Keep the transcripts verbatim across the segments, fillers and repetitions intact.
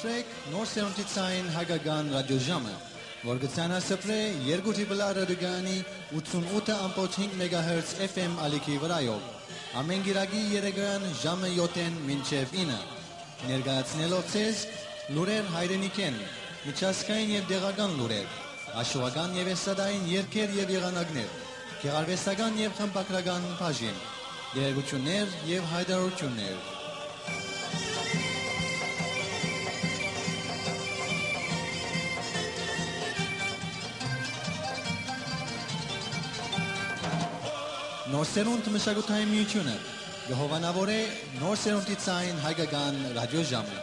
Նոր սերունդի ցային հայկական ռադիոժամը, որ կը ցանասպրէ երկու Triple R ռադիոկայանի ութսունութ ըմբոց հինգ մեգահերց F M ալիքի վրայով, ամէն կիրակի երեկոյեան ժամը յոթ մինչեւ ինը, ներկայացնելով ձեզ լուրեր հայրենիքէն, միջազգային եւ տեղական լուրեր, հաշուական եւ էստրադային երգեր եւ եղանակներ, գեղարուեստական եւ խմբագրական բաժին, տեղեկութիւններ եւ յայտարարութիւններ։ Նոր սերունդ մշակութային միութիւնը կը հովանաւորէ նոր սերունդի ցային հայկական ռադիոժամը։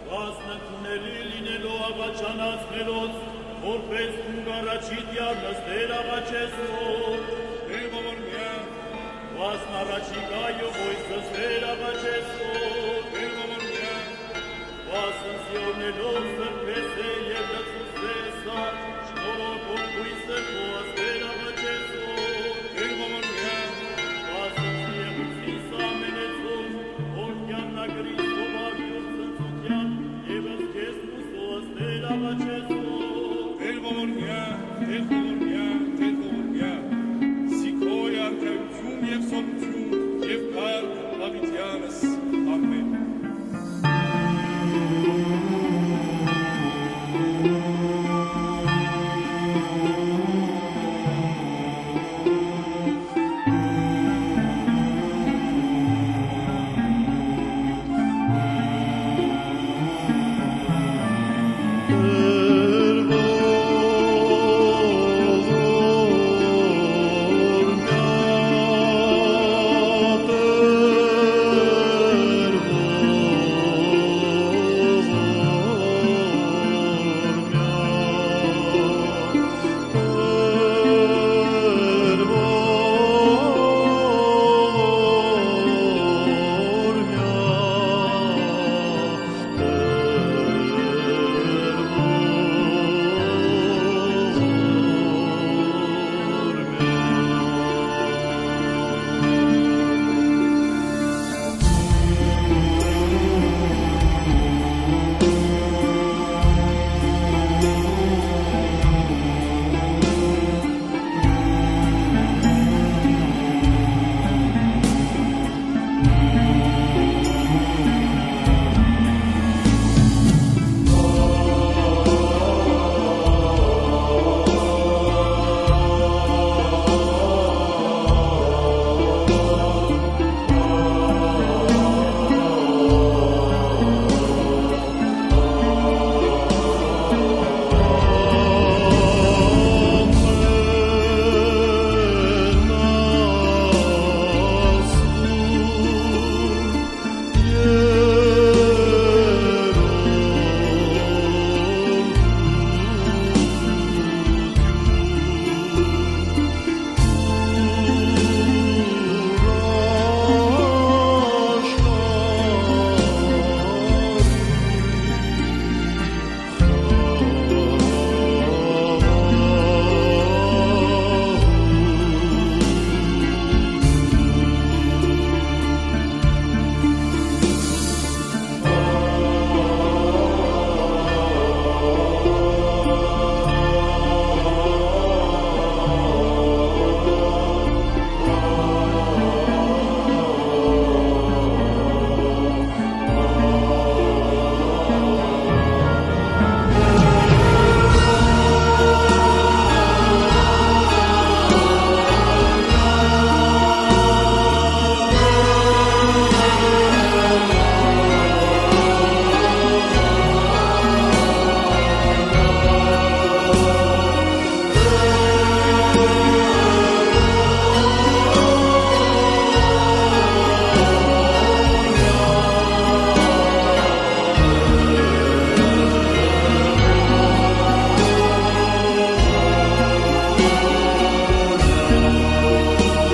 Վասնագունդը լինելով աղաչանաց մերոց, որպես դուն կ'առաջիդ յառնս Տէր աղաչեսով, Տեր ողորմեան, վասն առաջիկայով ոյսս Տեր աղաչեսով, Տեր ողորմեան, վասն Սիոնելով սրբեսէ եւ լցուցսէ սա, շնորհով քոյսը Բոազ Տեր աղաչեսով, Տեր ողորմեան, վասն Սիեղուցիս ամենեցուն, որ կյաննագրի սովար յուր ցնծութեան, եւս քեզ Տեր աղաչեսով, Տեր ողորմեան, Տեր ողորմեան, Տեր ողորմեան, զի քոյ արքայութիւն եւ սովորութիւն եւ կարգ Դաւիթեանս, ամէն։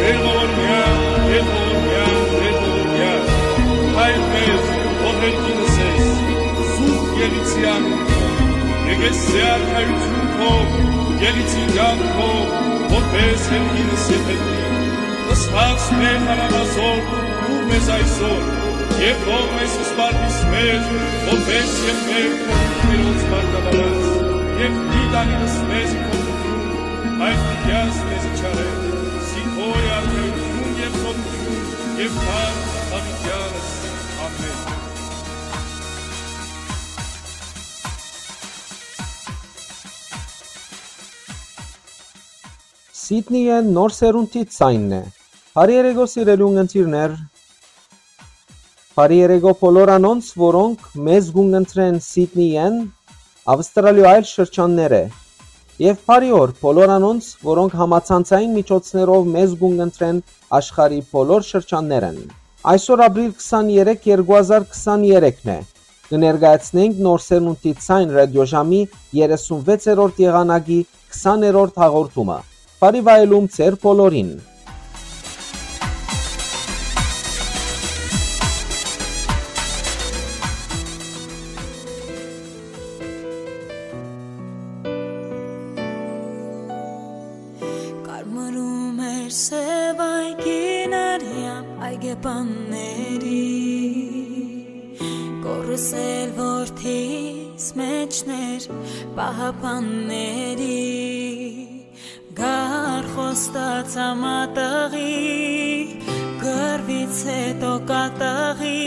Տեր ողորմեան, Տեր ողորմեան, Տեր ողորմեան, Հայր մեր, որ հերկինս ես, սուրբ Եղիցեան, եկես ձեր արքայութիւն քով, Ելիցին կյանքով, որպես երկինս եթերնի, ըսած մեր հարամազոր, դուր մեզ այսօր, եւ թող մեզ սպարտիս մեր, որպես եւ մեր Տիրոջ մարտավարած, եւ դիտանիլս մեզ փոփոխում, այլ դիտյաս մեզ չարել, զինքորի արքայություն եւ խորհրդություն եւ թարմ հավիտյանս։ Ամեն։ Սիդնիէն նոր սերունդի ձայնն է։ Բարի երեկո, սիրելի ունգընտիրներ։ Բարի երեկո բոլոր անոնց, որոնք մեզ կունգընտրեն Սիդնիէն, Ավստրալիոյ այլ շրջաններէ։ Եւ բարի օր բոլոր անոնց, որոնք համացանցային միջոցներով մեզ կունգընտրեն աշխարհի բոլոր շրջաններէն։ Այսօր ապրիլ քսաներեք, երկու հազար քսաներեքն է։ Կը ներկայացնենք նոր սերունդի ձայն ռադիոժամի երեսունվեցերորդ եղանակի քսաներորդ հաղորդումը։ Բարի վայելում ձեր բոլորին։ Կարմրում էր սև այգին արեան այգեպանների, կորս էլ որդիս մեջներ պահապանների, գար խոստացա մատաղի, կռվից հետո կատաղի,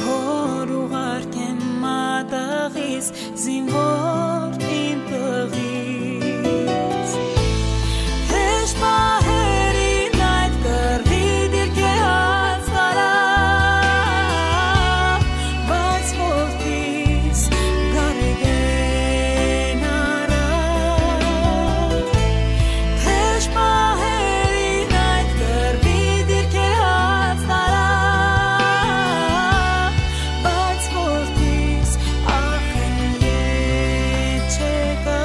որ ուղարկեմ մատաղիս զինվոր իմ տղիս։ Հեշտ պահերին այդ կռվի դիրքէ հաց տարա, բայց որդիս գարեգեն առա։ Հեշտ պահերին այդ կռվի դիրքէ հաց տարա, բայց որդիս ախ են ետ չեկա։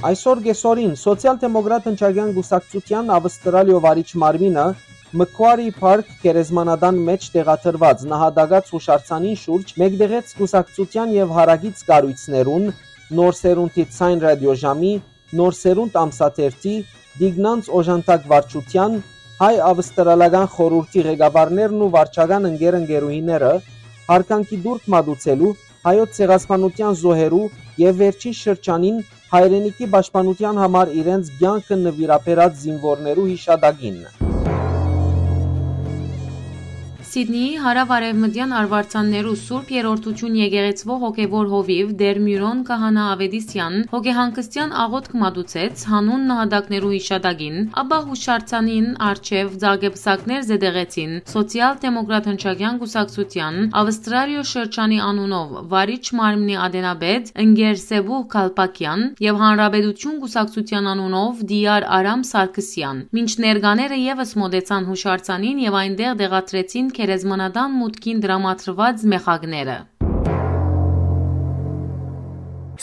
Այսօր կեսօրին Սոցիալ-դեմոկրատ ընչակեան կուսակցութեան Ավստրալիոյ վարիչ մարմինը Մքուարի Փարք գերեզմանատան մէջ տեղադրուած նահատակաց յուշարձանին շուրջ մեկտեղեց կուսակցութեան եւ հարակից կառոյցներուն, Նոր Սերունդի Ձայն ռադիոժամի, Նոր Սերունդ ամսաթերթի, Տիգնանց օժանդակ վարչութեան, հայ-ավստրալական խորհուրդի ղեկավարներն ու վարչական ընկեր-ընկերուհիները, յարգանքի տուրք մատուցելու, հայոց ցեղասպանութեան զոհերու եւ վերջին շրջանին հայրենիքի պաշտպանութեան համար իրենց կեանքը նուիրաբերած զինուորներու յիշատակին։ Սիդնիի հարաւարեւմտեան արուարձաններու Սուրբ Երրորդութիւն եկեղեցւոյ հոգեւոր հովիւ Տէր Միւրոն Քահանայ Աւետիսեան հոգեհանգստեան աղօթք մատուցեց յանուն նահատակներու յիշատակին, ապա յուշարձանին առջեւ ձագեպսակներ զետեղեցին Սոցիալ-դեմոկրատ ընչակեան կուսակցութեան Ավստրալիոյ շրջանի անունով վարիչ մարմնի ատենապետ ընկեր Սեբուհ Քալպակեան եւ Հանրապետութիւն կուսակցութեան անունով Տիար Արամ Սարգսեան, մինչ ներկաները եւս մօտեցան յուշարձանին եւ այնտեղ տեղադրեցին գերեզմանատան մուտքին տրամադրուած մեխակները։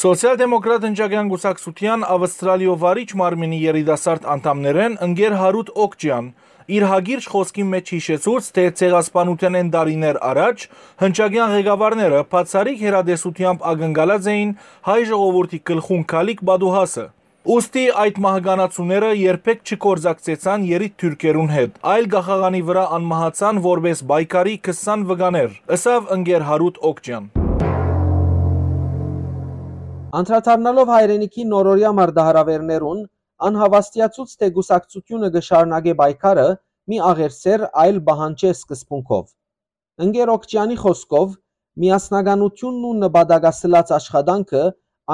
Սոցիալ-դեմոկրատ ընչակեան կուսակցութեան Ավստրալիոյ վարիչ մարմինի երիտասարդ անդամներէն ընկեր Հարութ Օկճեան իր հակիրճ խօսքին մէջ յիշեցուց, թէ ցեղասպանութենէն տարիներ առաջ հնչակեան ղեկավարները բացառիկ հեռատեսութեամբ ակնկալած էին հայ ժողովուրդի գլխուն գալիք պատուհասը։ Ուստի այդ մահկանացուները երբեք չգործակցեցան երիտ թուրքերուն հետ, այլ կախաղանի վրայ անմահացան որպէս պայքարի քսան վկաներ, ըսաւ ընկեր Հարութ Օկճեան։ Անդրադառնալով հայրենիքի նորօրեայ մարտահրաւէրներուն, ան հաւաստիացուց, թէ կուսակցութիւնը կը շարունակէ պայքարը մի աղերսեր, այլ պահանջէ սկզբունքով։ Ընկեր Օկճեանի խօսքով, միասնականութիւնն ու նպատակասլաց աշխատանքը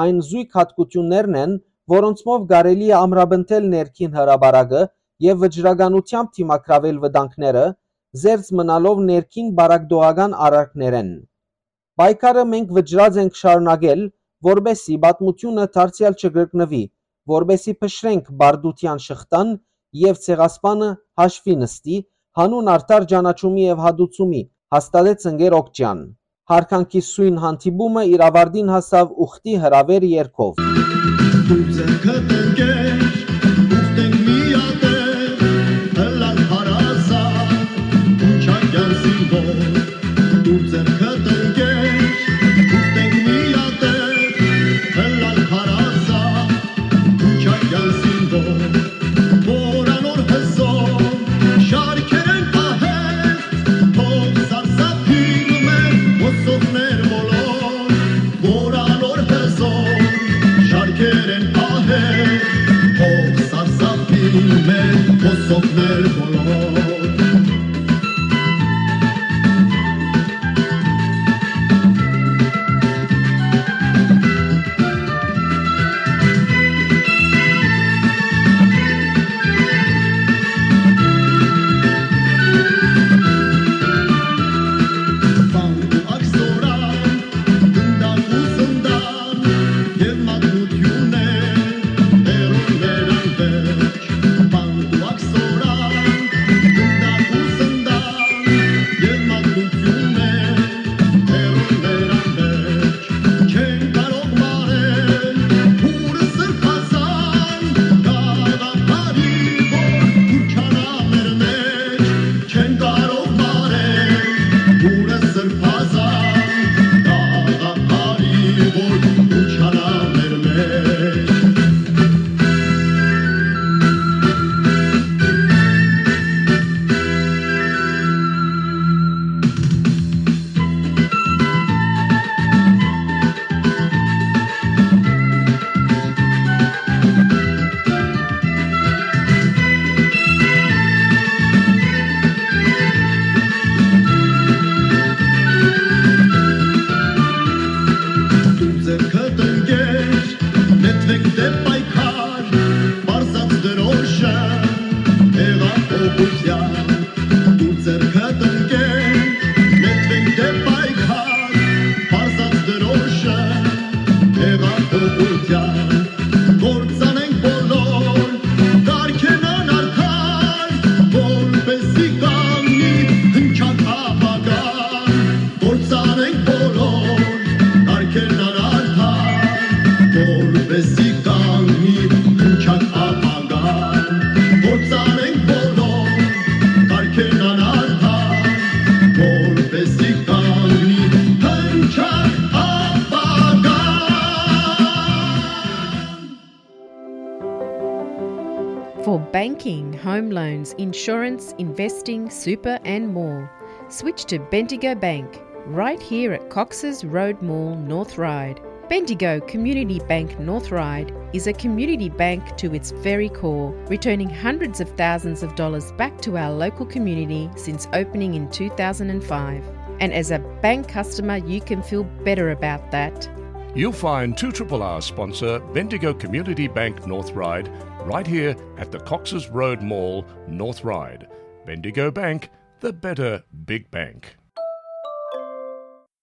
այն զոյգ յատկութիւններն են, որոնցմով կարելի է ամրապնդել ներքին հրապարակը եւ վճռականութեամբ դիմագրավել վտանգները, զերծ մնալով ներքին պառակտողական արարքներէն։ Պայքարը մենք վճռած ենք շարունակել, որպէս զի պատմութիւնը դարձեալ չկրկնուի, որպէս զի փշրենք պարտութեան շղթան եւ ցեղասպանը հաշուի նստի, յանուն արդար ճանաչումի եւ հատուցումի, հաստատեց ընկեր Օկճեան։ Յարգանքի սոյն հանդիպումը իր աւարտին հասաւ ուխտի հրաւէր երգով։ Դու ձեռքդ ընկեր, ուխտենք միատեղ, ըլլանք հարազատ, Քուչակեան զինվոր։ Դու ձեռքդ ընկեր, ուխտենք միատեղ, ըլլանք հարազատ, Քուչակեան զինվոր, որ անոր հզոր շարքերէն պահեր, թող սարսափին մեր հոսողներ բոլոր, որ անոր հզոր շարքերէն պահեր, թող սարսափին մեր հոսողներ բոլոր։ Վանք ու աքսորան, գնդակ ու զնդան, եւ մատնութիւն է հեռուներան վերջ։ Վանք ու աքսորան, գնդակ ու զնդան, եւ մատնութիւն է հեռուներան վերջ։ Չեն կարող մարել հուրը սրբազան, գաղափարի որ քուչանայ մեր մեջ։ Չեն կարող մարել հուրը սրբազան, գաղափարի որ քուչանայ մեր մեջ։ Դու ձեռքդ ընկեր, նետվենք դեպ պայքար, պարզած դրոշը, հեղափոխության։ Դու ձեռքդ ընկեր, նետվենք դեպ պայքար, պարզած դրոշը, հեղափոխության։ Կործանենք բոլոր կարգերն անարդար, որպեսզի կանգնի հնչակ ապագան։ Կործանենք բոլոր կարգերն անարդար, որպեսզի կանգնի For banking, home loans, insurance, investing, super, and more, switch to Bendigo Bank, right here at Cox's Road Mall, North Ryde. Bendigo Community Bank North Ryde is a community bank to its very core, returning hundreds of thousands of dollars back to our local community since opening in two thousand and five. And as a bank customer, you can feel better about that. You'll find two triple R sponsor Bendigo Community Bank North Ryde right here at the Cox's Road Mall, North Ryde. Bendigo Bank, the better big bank.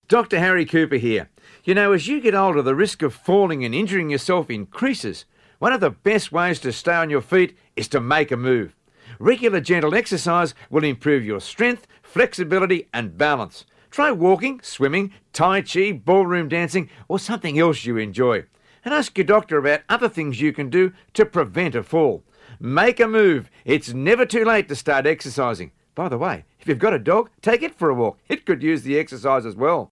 Doctor Harry Cooper here. You know, as you get older, the risk of falling and injuring yourself increases. One of the best ways to stay on your feet is to make a move. Regular gentle exercise will improve your strength, flexibility, and balance. Try walking, swimming, tai chi, ballroom dancing, or something else you enjoy. And ask your doctor about other things you can do to prevent a fall. Make a move. It's never too late to start exercising. By the way, if you've got a dog, take it for a walk. It could use the exercise as well.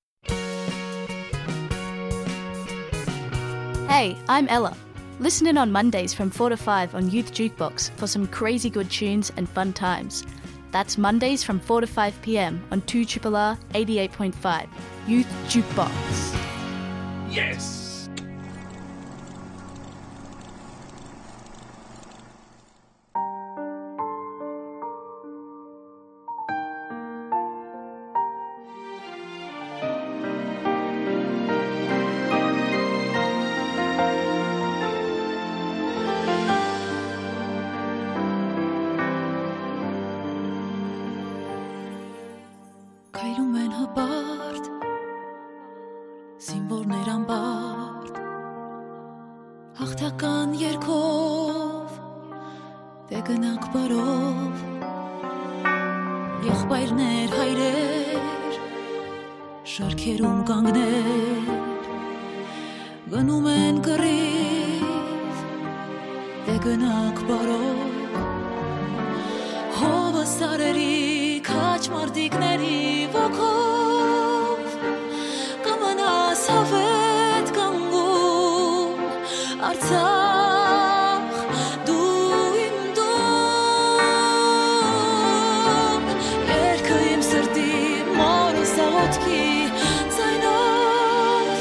Hey, I'm Ella. Listen in on Mondays from four to five on Youth Jukebox for some crazy good tunes and fun times. That's Mondays from four to five p m on two triple R eighty-eight point five. Youth Jukebox. Yes! Քայլում են հպարտ, զինվորներ անպարտ, հաղթական երգով դե գնանք բարով, եղբայրներ, հայրեր, շարքերում կանգներ, գնում են կռիվ, դե գնանք բարով, հովը սարերի քաջ մարտիկների ոգով, կմնաս հավետ կանգուն, Արցախ, դու իմ տուն, երկը իմ սրտի, մորս աղոթքի ձայնով,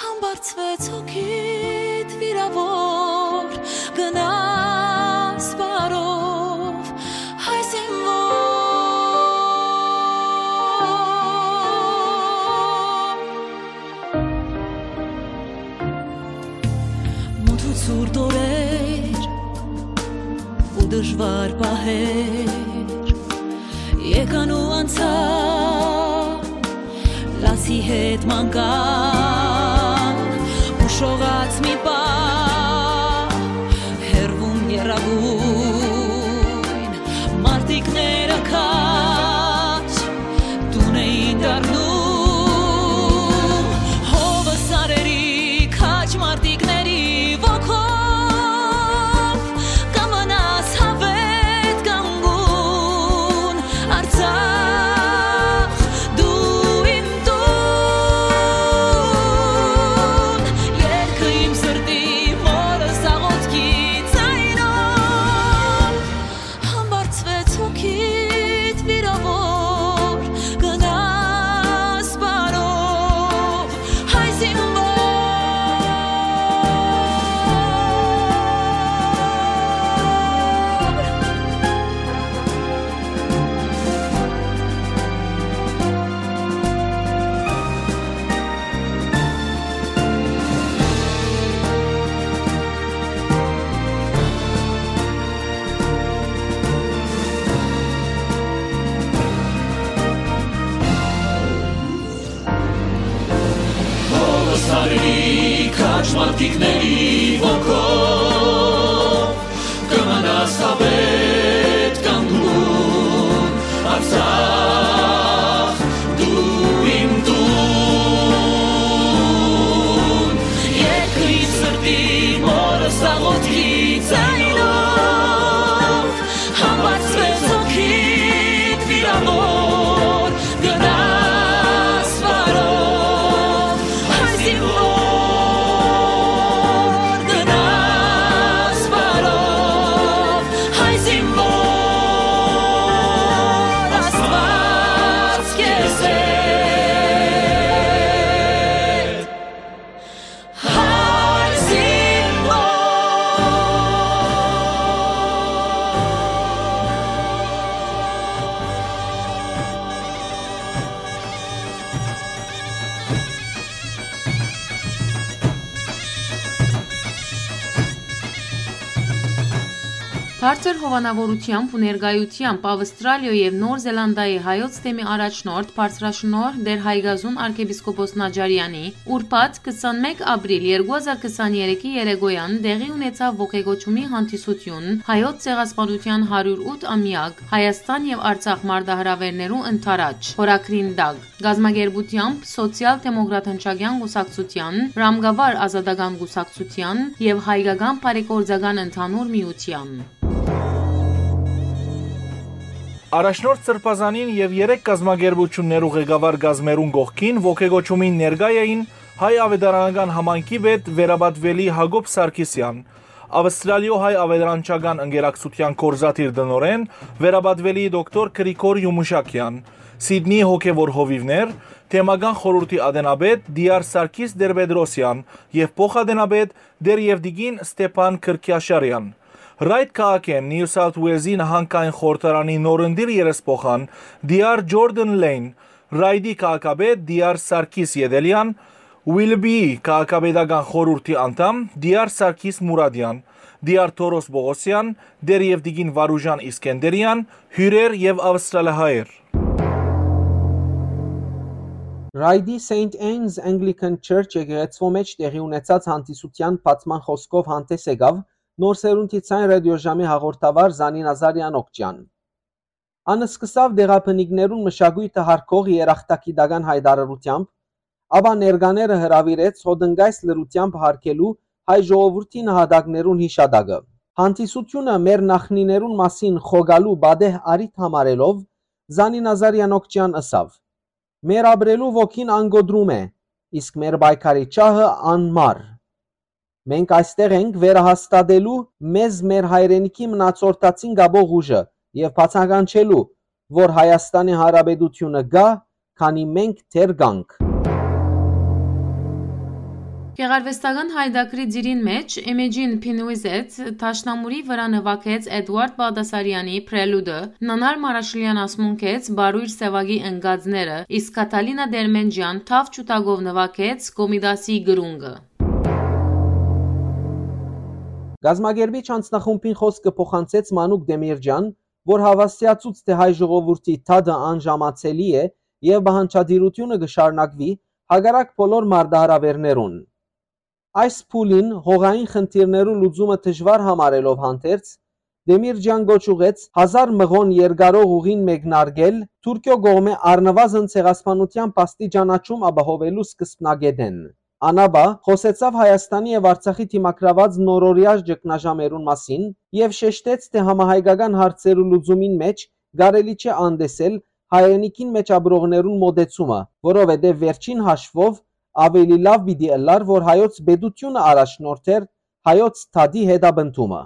համբարձվեց հոգիդ վիրավոր, գնաս բարով, հայ զինվոր։ Մութ ու ցուրտ օրեր ու դժուար պահեր եկան ու անցան, լացի հետ մանկան ու շողաց մի պահ, հեռվում եռագույն մարտիկները քաջ տուն էին դառնում, հովը սարերի քաջ մարտիկների ոգով, կմնաս հավետ կանգուն, Արցախ, դու իմ տուն, երկը իմ սրտի, մորս աղոթքի ձայնով, համբարձվեց հոգիդ վիրավոր, գնաս բարով, հայ զինվոր։ Հովը սարերի քաջ մարտիկների ոգով, կմնաս հավետ կանգուն, Արցախ, դու իմ տուն, երկրի սրտի, մորս աղոթքի ձայնով, համբարձվեց հոգիդ վիրավոր, գնաս բարով, հայ զինվոր, գնաս բարով, Բարձր հովանաւորութեամբ ու ներկայութեամբ Աւստրալիոյ եւ Նոր Զելանդիայի հայոց թեմի առաջնորդ բարձրաշնորհ Տէր Հայկազուն արքեպիսկոպոս Նաճարեանի ուրբաթ քսանմէկ ապրիլ երկու հազար քսաներեքի երեկոյեան տեղի ունեցաւ ոգեկոչումի հանդիսություն հայոց ցեղասպանութեան հարիւր ութ ամեակ Հայաստան եւ Արցախ մարտահրաւէրներու ընդառաջ խորագրին տակ, կազմակերպութեամբ Սոցիալ-դեմոկրատ հնչակեան կուսակցութեան, Ռամկավար ազատական կուսակցութեան եւ Հայկական բարեգործական ընդհանուր միութեան։ Առաջնորդ Սրբազանին եւ երեք կազմակերպութիւններու ղեկավար կազմերուն կողքին ոգեկոչումին ներկայ էին հայ աւետարանական համայնքի պետ վերապատուելի Յակոբ Սարգիսեան, Աւստրալիոյ հայ աւետարանչական ընկերակցութեան գործադիր տնօրէն վերապատուելի դոկտոր Գրիգոր Յումուշակեան, Սիդնի հոգեւոր հովիւներ, թեմական խորհուրդի ատենապետ Տիար Սարգիս Տեր-Պետրոսեան եւ փոխատենապետ Տեր Եվտիքին Ստեփան Քրքիաշարեան։ Ռայթ քաղաքէն Նիու Սաութ Ուելզի նահանգային խորհրդարանի նորընտիր երեսփոխան Տիար Ջորդան Լեյն, Ռայթի քաղաքապետ Տիար Սարգիս Ետելեան, Ուիլբիի քաղաքապետական խորհուրդի անդամ Տիար Սարգիս Մուրադեան, Տիար Թորոս Պողոսեան, Տեր Եվտիքին Վարուժան Իսկենդերեան, հիւրեր եւ աւստրալահայեր։ Ռայդի Սեյնթ Էնզ Anglican Church եկեղեցւոյ մէջ տեղի ունեցած հանդիսութեան բացման խօսքով հանդէս եկաւ Նոր Սերունդի Ձայն ռադիոժամի հաղորդավար Զանի Նազարեան Օկճեան։ Ան սկսաւ տեղաբնիկներուն մշակոյթը յարգող երախտագիտական յայտարարութեամբ, ապա ներկաները հրաւիրեց հոտնկայս լռութեամբ յարգելու հայ ժողովուրդի նահատակներուն յիշատակը։ Հանդիսությունը մեր նախնիներուն մասին խոկալու պատեհ առիթ համարելով, Զանի Նազարեան Օկճեան ըսաւ. «Մեր ապրելու ոգին անկոտրում է, իսկ մեր պայքարի ջահը անմար։ Մենք այստեղ ենք վերահաստատելու մեզ մեր հայրենիքի մնացորդացին կապող ուժը եւ բացագանչելու, որ Հայաստանի Հանրապետությունը կայ, քանի մենք դեռ կանք»։ Գեղարուեստական յայտագրի ծիրին մէջ Իմեջին Փինուիզեթ դաշնամուրի վրայ նուագեց Էդուարդ Բաղդասարեանի Պրելուդը, Նանար Մարաշլեան ասմունքեց Բարոյր Սեւակի ընկածները, իսկ Քաթալինա Դերմենջեան թաւ ջութակով նուագեց Կոմիտասի կրունկը։ Կազմակերպիչ անձնախումբին խօսքը փոխանցեց Մանուկ Դեմիրճեան, որ հաւաստիացուց թէ հայ ժողովուրդի դատը անժամացելի է եւ պահանջատիրութիւնը կը շարունակուի հակառակ բոլոր մարտահրաւէրներուն։ Այս փուլին հողային խնդիրներու լուծումը դժուար համարելով հանդերձ, Դեմիրճեան կոչ ուղղեց հազար մղոն երկարող ուղին մեկնարկել Թուրքիոյ կողմէ առնուազն ցեղասպանութեան փաստի ճանաչում ապահովելու սկզբնակէտէն։ Ան ապա խօսեցաւ Հայաստանի եւ Արցախի դիմագրաւած նորօրեայ ճգնաժամերուն մասին եւ շեշտեց թէ համահայկական հարցերու լուծումին մէջ կարելի չէ անտեսել հայրենիքին մէջ ապրողներուն մօտեցումը, որովհետեւ վերջին հաշվով ավելի լաւ պիտի ըլլար, որ հայոց պետությունը առաջնորդէր հայոց դատի հետապնդումը։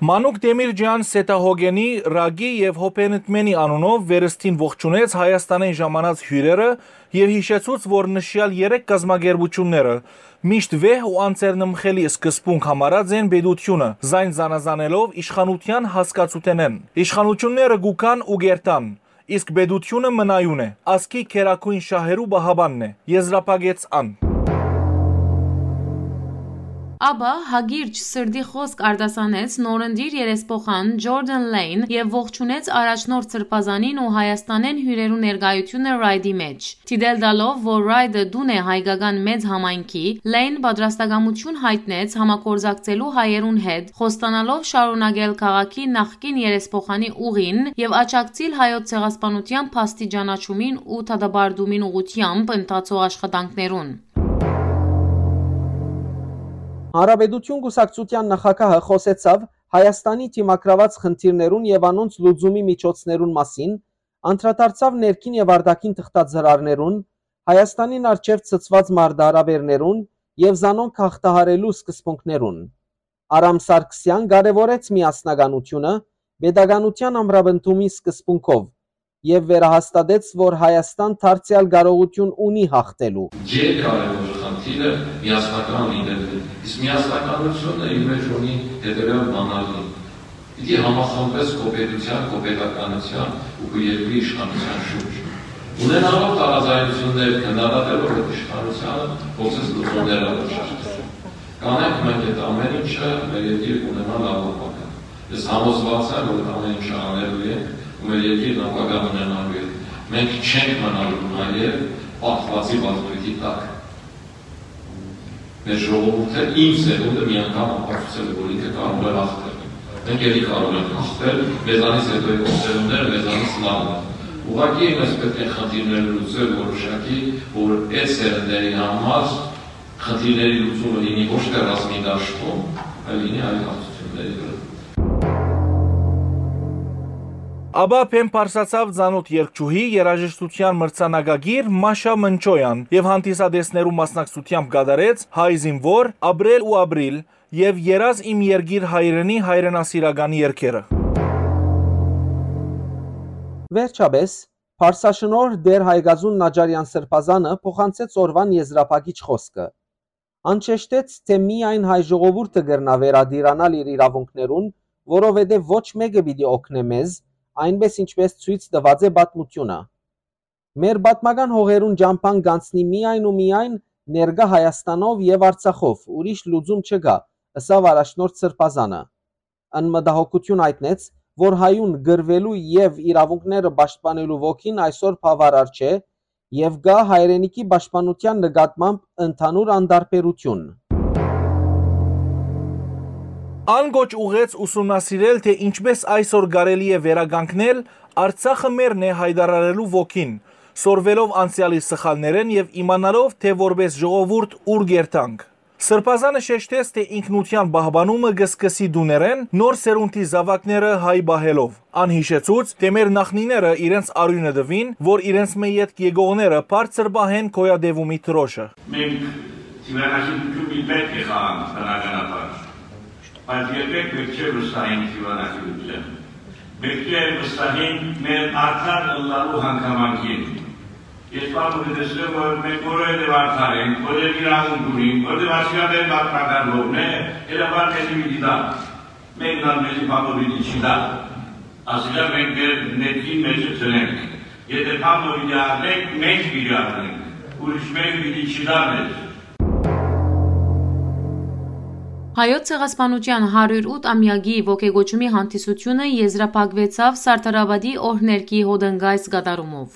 Մանուկ Դեմիրճեան Սեթահոգենի, Ռագի եւ Հոփենտմենի անունով վերստին ողջունեց Հայաստանէն ժամանած հիւրերը եւ յիշեցուց, որ նշեալ երեք կազմակերպութիւնները միշտ վեհ ու անձեռնմխելի սկզբունք համարած են պետությունը, զայն զանազանելով իշխանութեան հասկացութենէն։ Իշխանութիւնները կուգան ու կերթան, իսկ պետությունը մնայուն է, ազգի գերագոյն շահերու պահապանն է, եզրափակեց ան։ Ապա հակիրճ սրտի խօսք արտասանեց նորընտիր երեսփոխան Ջորդան Լեյն եւ ողջունեց առաջնորդ Սրբազանին ու Հայաստանէն հիւրերու ներկայութիւնը Ռայդի մէջ։ Դիտել տալով, որ Ռայդը տուն է հայկական մեծ համայնքի, Լեյն պատրաստակամութիւն յայտնեց համագործակցելու հայերուն հետ, խոստանալով շարունակել քաղաքի նախկին երեսփոխանի ուղին եւ աջակցիլ հայոց ցեղասպանութեան փաստի ճանաչումին ու դատապարտումին ուղղութեամբ ընթացող աշխատանքներուն։ Հանրապետություն կուսակցութեան նախագահը խօսեցաւ Հայաստանի դիմագրաւած խնդիրներուն եւ անոնց լուծումի միջոցներուն մասին, անդրադարձաւ ներքին եւ արտաքին թղթածրարներուն, Հայաստանին առջեւ ցցուած մարտահրաւէրներուն եւ զանոնք հաղթահարելու սկզբունքներուն։ Արամ Սարգսեան կարեւորեց միասնականութիւնը պետականութեան ամրապնդումի սկզբունքով եւ վերահաստատեց, որ Հայաստան դարձեալ կարողութիւն ունի յաղթելու։ Ջերկարեւոր խնդիրը միասնական լինելն է, իսկ միասնականությունը իր մեջ ունի հետեւյալ բանալին. պիտի համախմբես քո պետության, քո պետականության ու քո երկրի իշխանության շուրջ։ Ունենալով տարաձայնություններ, քննադատելով այդ իշխանությանը, փորձես լուծումներ առաջարկել։ Կանենք մենք այդ ամեն ինչը մեր երկիր կունենա լավ ապագա։ Ես համոզված եմ, որ այդ ամեն ինչը անելու ենք ու մեր երկիրն ապագա ունենալու է։ Մենք չենք մնալու նաև պարտվածի վախտույթի տակ։ Մեր ժողովուրդը, իմ սերունդը մի անգամ ապացուցել է, որ ինքը կարող է հաղթել։ Մենք ելի կարող ենք հաղթել, մեզանից հետո եկող սերունդները մեզանից լավն են։ Ուղղակի մենք պետք է խնդիրները լուծել որոշակի, որ այդ սերնդերի համար խնդիրների լուծումը լինի ոչ թե ռազմի դաշտում, այլ լինի այլ հարցությունների վրա։ Ապա բեմ պարսացաւ ծանոթ երգչուհի, երաժշտության մրցանակակիր Մաշա Մնչոյան եւ հանդիսատեսներու մասնակցությամբ կատարեց Հայ զինվոր, Ապրել ու ապրիլ եւ Երազ իմ երկիր հայրենի հայրենասիրական երգերը։ Վերջապէս, Պարսաշնորհ Տէր Հայկազուն Նաճարեան Սրբազանը փոխանցեց օրուան եզրափակիչ խօսքը։ Ան շեշտեց, թէ միայն հայ ժողովուրդը կրնայ վերատիրանալ իր իրաւունքներուն, որովհետեւ ոչ մէկը պիտի օգնէ մեզ, այնպէս ինչպէս ցոյց տուած է պատմութիւնը։ Մեր պատմական հողերուն ճամբան կ'անցնի միայն ու միայն ներկայ Հայաստանով եւ Արցախով, ուրիշ լուծում չկայ, ըսաւ առաջնորդ Սրբազանը։ Ան մտահոգութիւն յայտնեց, որ հայուն կռուելու եւ իրաւունքները պաշտպանելու ոգին այսօր բաւարար չէ եւ կայ հայրենիքի պաշտպանութեան նկատմամբ ընդհանուր անտարբերութիւն։ Ան կոչ ուղղեց ուսումնասիրել, թէ ինչպէս այսօր կարելի է վերականգնել «Արցախը մերն է» յայտարարելու ոգին, սորվելով անցեալի սխալներէն եւ իմանալով, թէ որպէս ժողովուրդ ուր կ'երթանք։ Սրբազանը շեշտեց, թէ ինքնութեան պահպանումը կը սկսի տուներէն, նոր սերունդի զաւակները հայ պահելով։ Ան յիշեցուց, թէ մեր նախնիները իրենց արիւնը տուին, որ իրենց մէ ետք եկողները բարձր պահեն գոյատեւումի դրոշը։ Մենք դիւանագիտութիւն պիտի պետք է խաղանք բնականաբար, բայց երբեք պետք չէ վստահենք դիւանագիտութեան։ Պետք է վստահենք մեր արդար ըլլալու հանգամանքին։ Ես բանը կը տեսնեմ, որ մենք որովհետեւ արդար ենք, որովհետեւ իրավունք ունենք, որովհետեւ ասիկա մեր պատմական հողն է, հրապար մեզի պիտի տա։ Մեկն ալ մեզի բանը պիտի չի տա, ասիկա մենք մեր ներքին մեջը դնենք։ Եթե բանը պիտի առնենք, մենք պիտի առնենք, ուրիշ մեկը պիտի չի տա մեզ։ Հայոց ցեղասպանութեան հարիւր ութ ամեակի ոգեկոչումի հանդիսութիւնը եզրափակուեցաւ Սարդարապատի օրհներգի հոտնկայս կատարումով։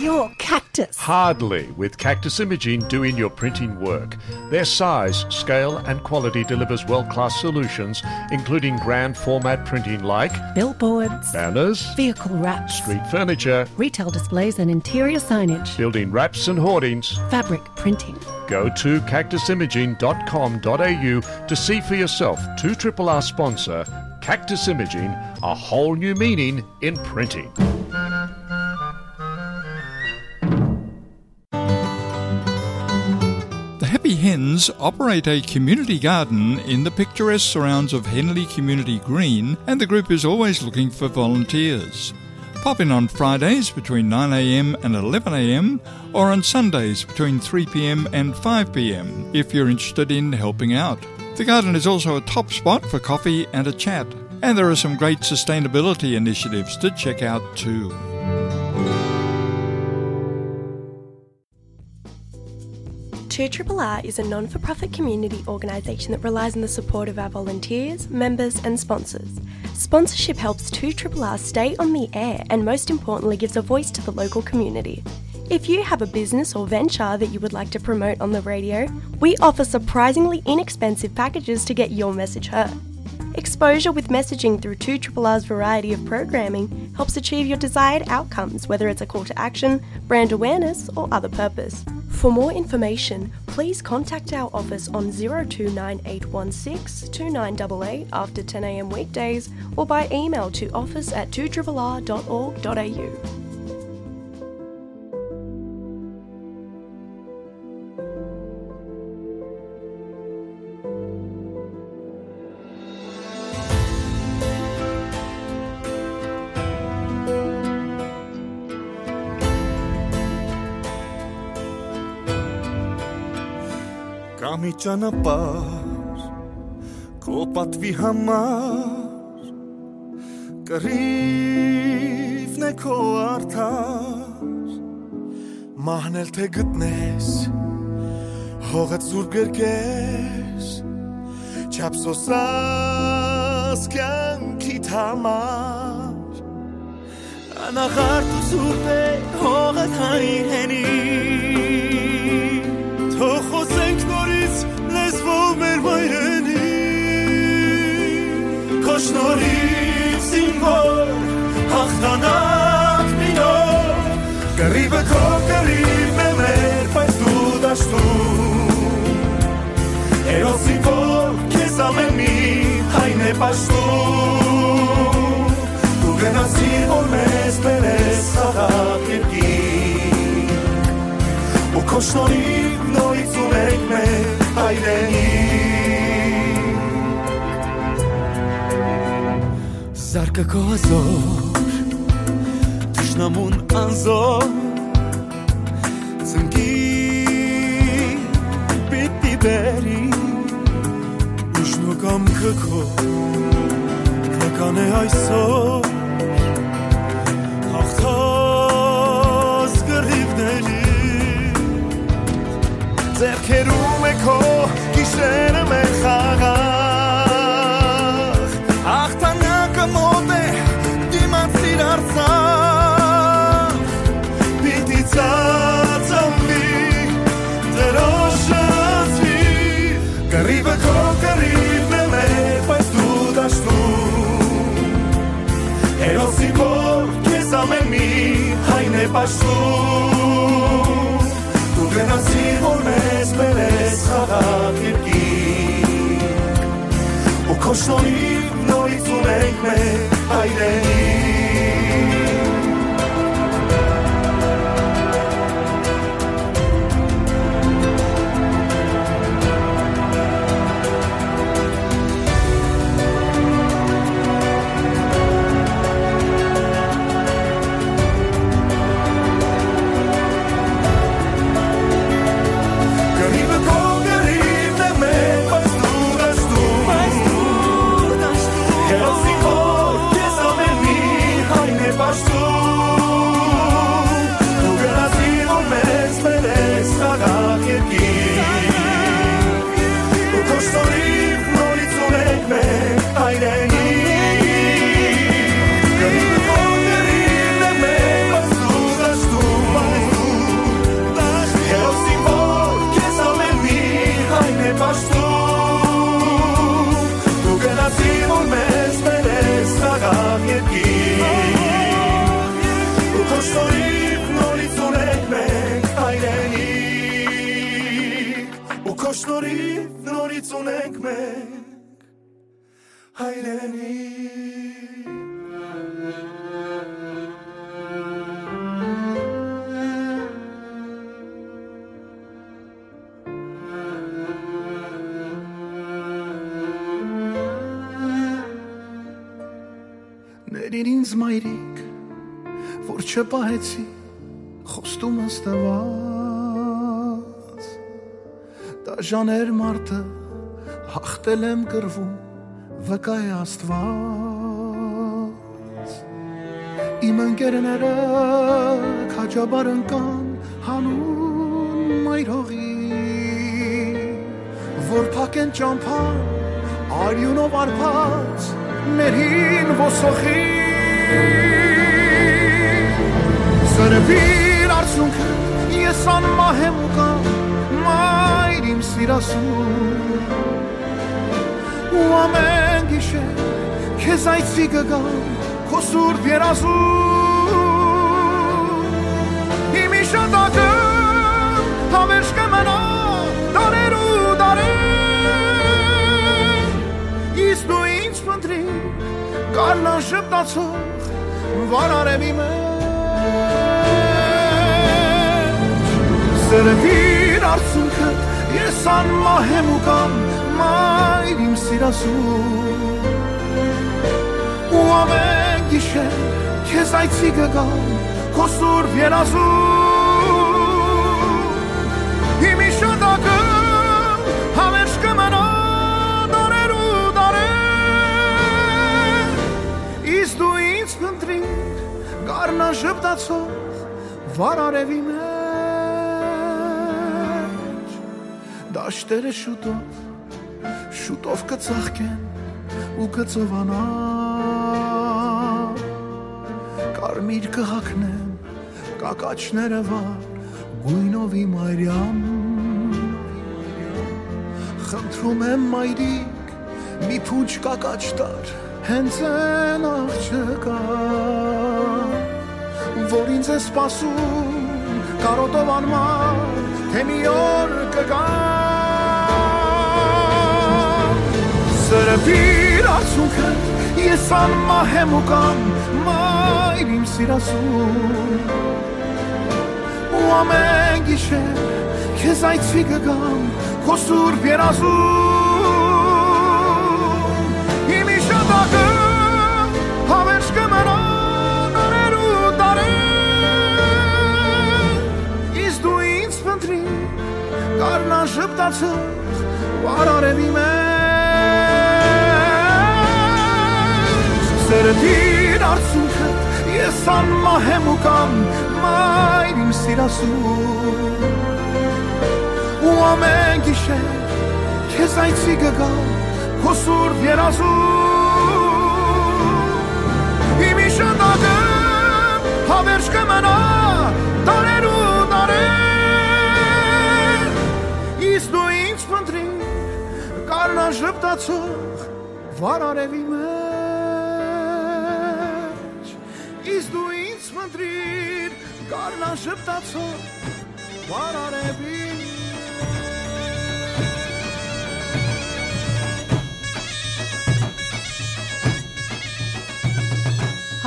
Your cactus. Hardly, with Cactus Imaging doing your printing work. Their size, scale, and quality delivers world class solutions, including grand format printing like billboards, banners, vehicle wraps, street furniture, retail displays, and interior signage, building wraps and hoardings, fabric printing. Go to cactus imaging dot com dot a u to see for yourself. Two triple R sponsor Cactus Imaging, a whole new meaning in printing. The Happy Hens operate a community garden in the picturesque surrounds of Henley Community Green, and the group is always looking for volunteers. Pop in on Fridays between nine a m and eleven a m, or on Sundays between three p m and five p m if you're interested in helping out. The garden is also a top spot for coffee and a chat. And there are some great sustainability initiatives to check out too. Two Triple R is a non for profit community organisation that relies on the support of our volunteers, members, and sponsors. Sponsorship helps Two Triple R stay on the air and, most importantly, gives a voice to the local community. If you have a business or venture that you would like to promote on the radio, we offer surprisingly inexpensive packages to get your message heard. Exposure with messaging through Two Triple R's variety of programming helps achieve your desired outcomes, whether it's a call to action, brand awareness, or other purpose. For more information, please contact our office on zero two nine eight one six two nine eight eight after ten a.m. weekdays or by email to office at two triple r dot org dot a u. Կա մի ճանապարհ քո պատուի համար, կռիվն է քո արդար, մահն էլ թե գտնես, հողը սուրբ կերկես, չափ սոսաս կյանքիդ համար։ Անաղարտ ու սուրբ է հողը, հայրենի, թող խոսենք նորից լեզվով մեր մայրենի։ Քո շնորհիվ զինվոր հաղթանակ մի նոր, կռիվը քո կռիվն է մեր, բայց դու դաշտում, հերոսին, որ քեզ ամեն մի հայն է պաշտում։ Դու գնացիր, որ մեզ բերես խաղաղ երկիր, ու քո շնորհիվ նորից ունենք մեր հայրենիք։ Զարկը քո հազոր, թշնամուն անզոր, ծնկի պիտի բերի, ուժն ու կամքը քո կկան է այսօր, հաղթած կռիվների, ձեռքերում է քո գիշերը մեր խաղաղ, հաղթանակը մոտ է, դիմացիր Արցախ, պիտի ծածանվի, Տիրոջը զգի, կռիվը քո կռիվն է մեր, բայց դու դաշտում, հերոսի, որ քեզ ամեն մի հայն է պաշտում, դու գնացիր, որ մեզ բերես խաղաղ երկիր, ու քո շնորհիվ նորից ունենք մեր հայրենիք։ Դու գնացիր, որ մեզ բերես խաղաղ երկիր, ու քո շնորհիվ նորից ունենք մենք հայրենիք, ու քո շնորհիվ նորից ունենք մենք հայրենիք։ Ներիր ինձ, մայրիկ, որ չպահեցի խոստումս տված։ Դաժան էր մարդը, հաղթել եմ կռվում, Վկայ Աստուած, իմ ընկերները քաջաբար ընկան հանուն մայր հողի, որ փակեն ճամբան արիունով արբած մեր հին ոսոխի։ Սրբիր արցունքը, ես անմահ եմ ու կամ, մայր իմ սիրասուն, ու ամեն գիշեր քեզ այցի կը գամ քո սուրբ երազում։ Իմ իշատակը հավերժ կը մնայ դարեր ու դարեր, իսկ դու ինձ փնտրիր գարնան ժպտացող վարարեւի մէջ։ Սրբիր արցունքը, ես անմահ եմ ու կամ, մայր իմ սիրասուն, ու ամեն գիշեր քեզ այցի կը գամ քո սուրբ երազում։ Իմ իշատակը հավերժ կը մնայ դարեր ու դարեր, իսկ դու ինձ փնտրիր գարնան ժպտացող վարարեւի մէջ։ Դաշտերը շուտով, շուտով կը ծաղկեն ու կը ծովանան, կարմիր կը հագնեմ կակաչները վառ գոյնովի մայրիամ։ Խնդրում եմ, մայրիկ, մի փունջ կակաչ տար հենց այն աղջկա, որ ինձ է սպասում կարոտով անմար, թե մի օր կգա։ Սրբիր արցունքը, ես անմահ եմ ու կամ, մայր իմ սիրասուն, ու ամեն գիշեր քեզ այցի կը գամ քո սուրբ երազում։ Իմ իշատակը հավերժ կը մնայ դարեր ու դարեր, իսկ դու ինձ փնտրիր գարնան ժպտացող վարարեւի մէջ։ Սրդիր արցունքը, ես անմահ եմ ու կամ, մայր իմ սիրասուն, ու ամեն գիշեր քեզ այցի կը գամ քո սուրբ երազում։ Իմ իշատակը հավերժ կը մնայ դարեր ու դարեր, իսկ դու ինձ փնտրիր գարնան ժպտացող վարարեւի մէջ, իսկ դու ինձ փնտրիր գարնան ժպտացող վարարեւի։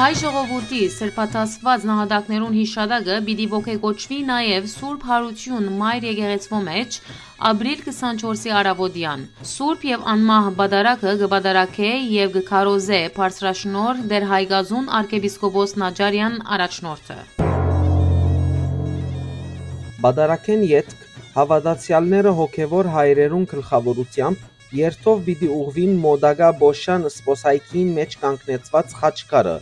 Հայ ժողովուրդի սրբատասված նահատակներուն յիշատակը պիտի ոգեկոչուի նաեւ Սուրբ Յարութիւն Մայր Եկեղեցւոյ մէջ, ապրիլ քսանչորսի առաւօտեան։ Սուրբ եւ անմահ պատարագը կը պատարագէ եւ կը քարոզէ բարձրաշնորհ Տէր Հայկազուն արքեպիսկոպոս Նաճարեան առաջնորդը։ Պատարագէն ետք հաւատացեալները հոգեւոր հայրերուն գլխաւորութեամբ երթով պիտի ուղղուին մօտակայ Պոշան սպոսայքին մէջ կանգնեցուած խաչքարը,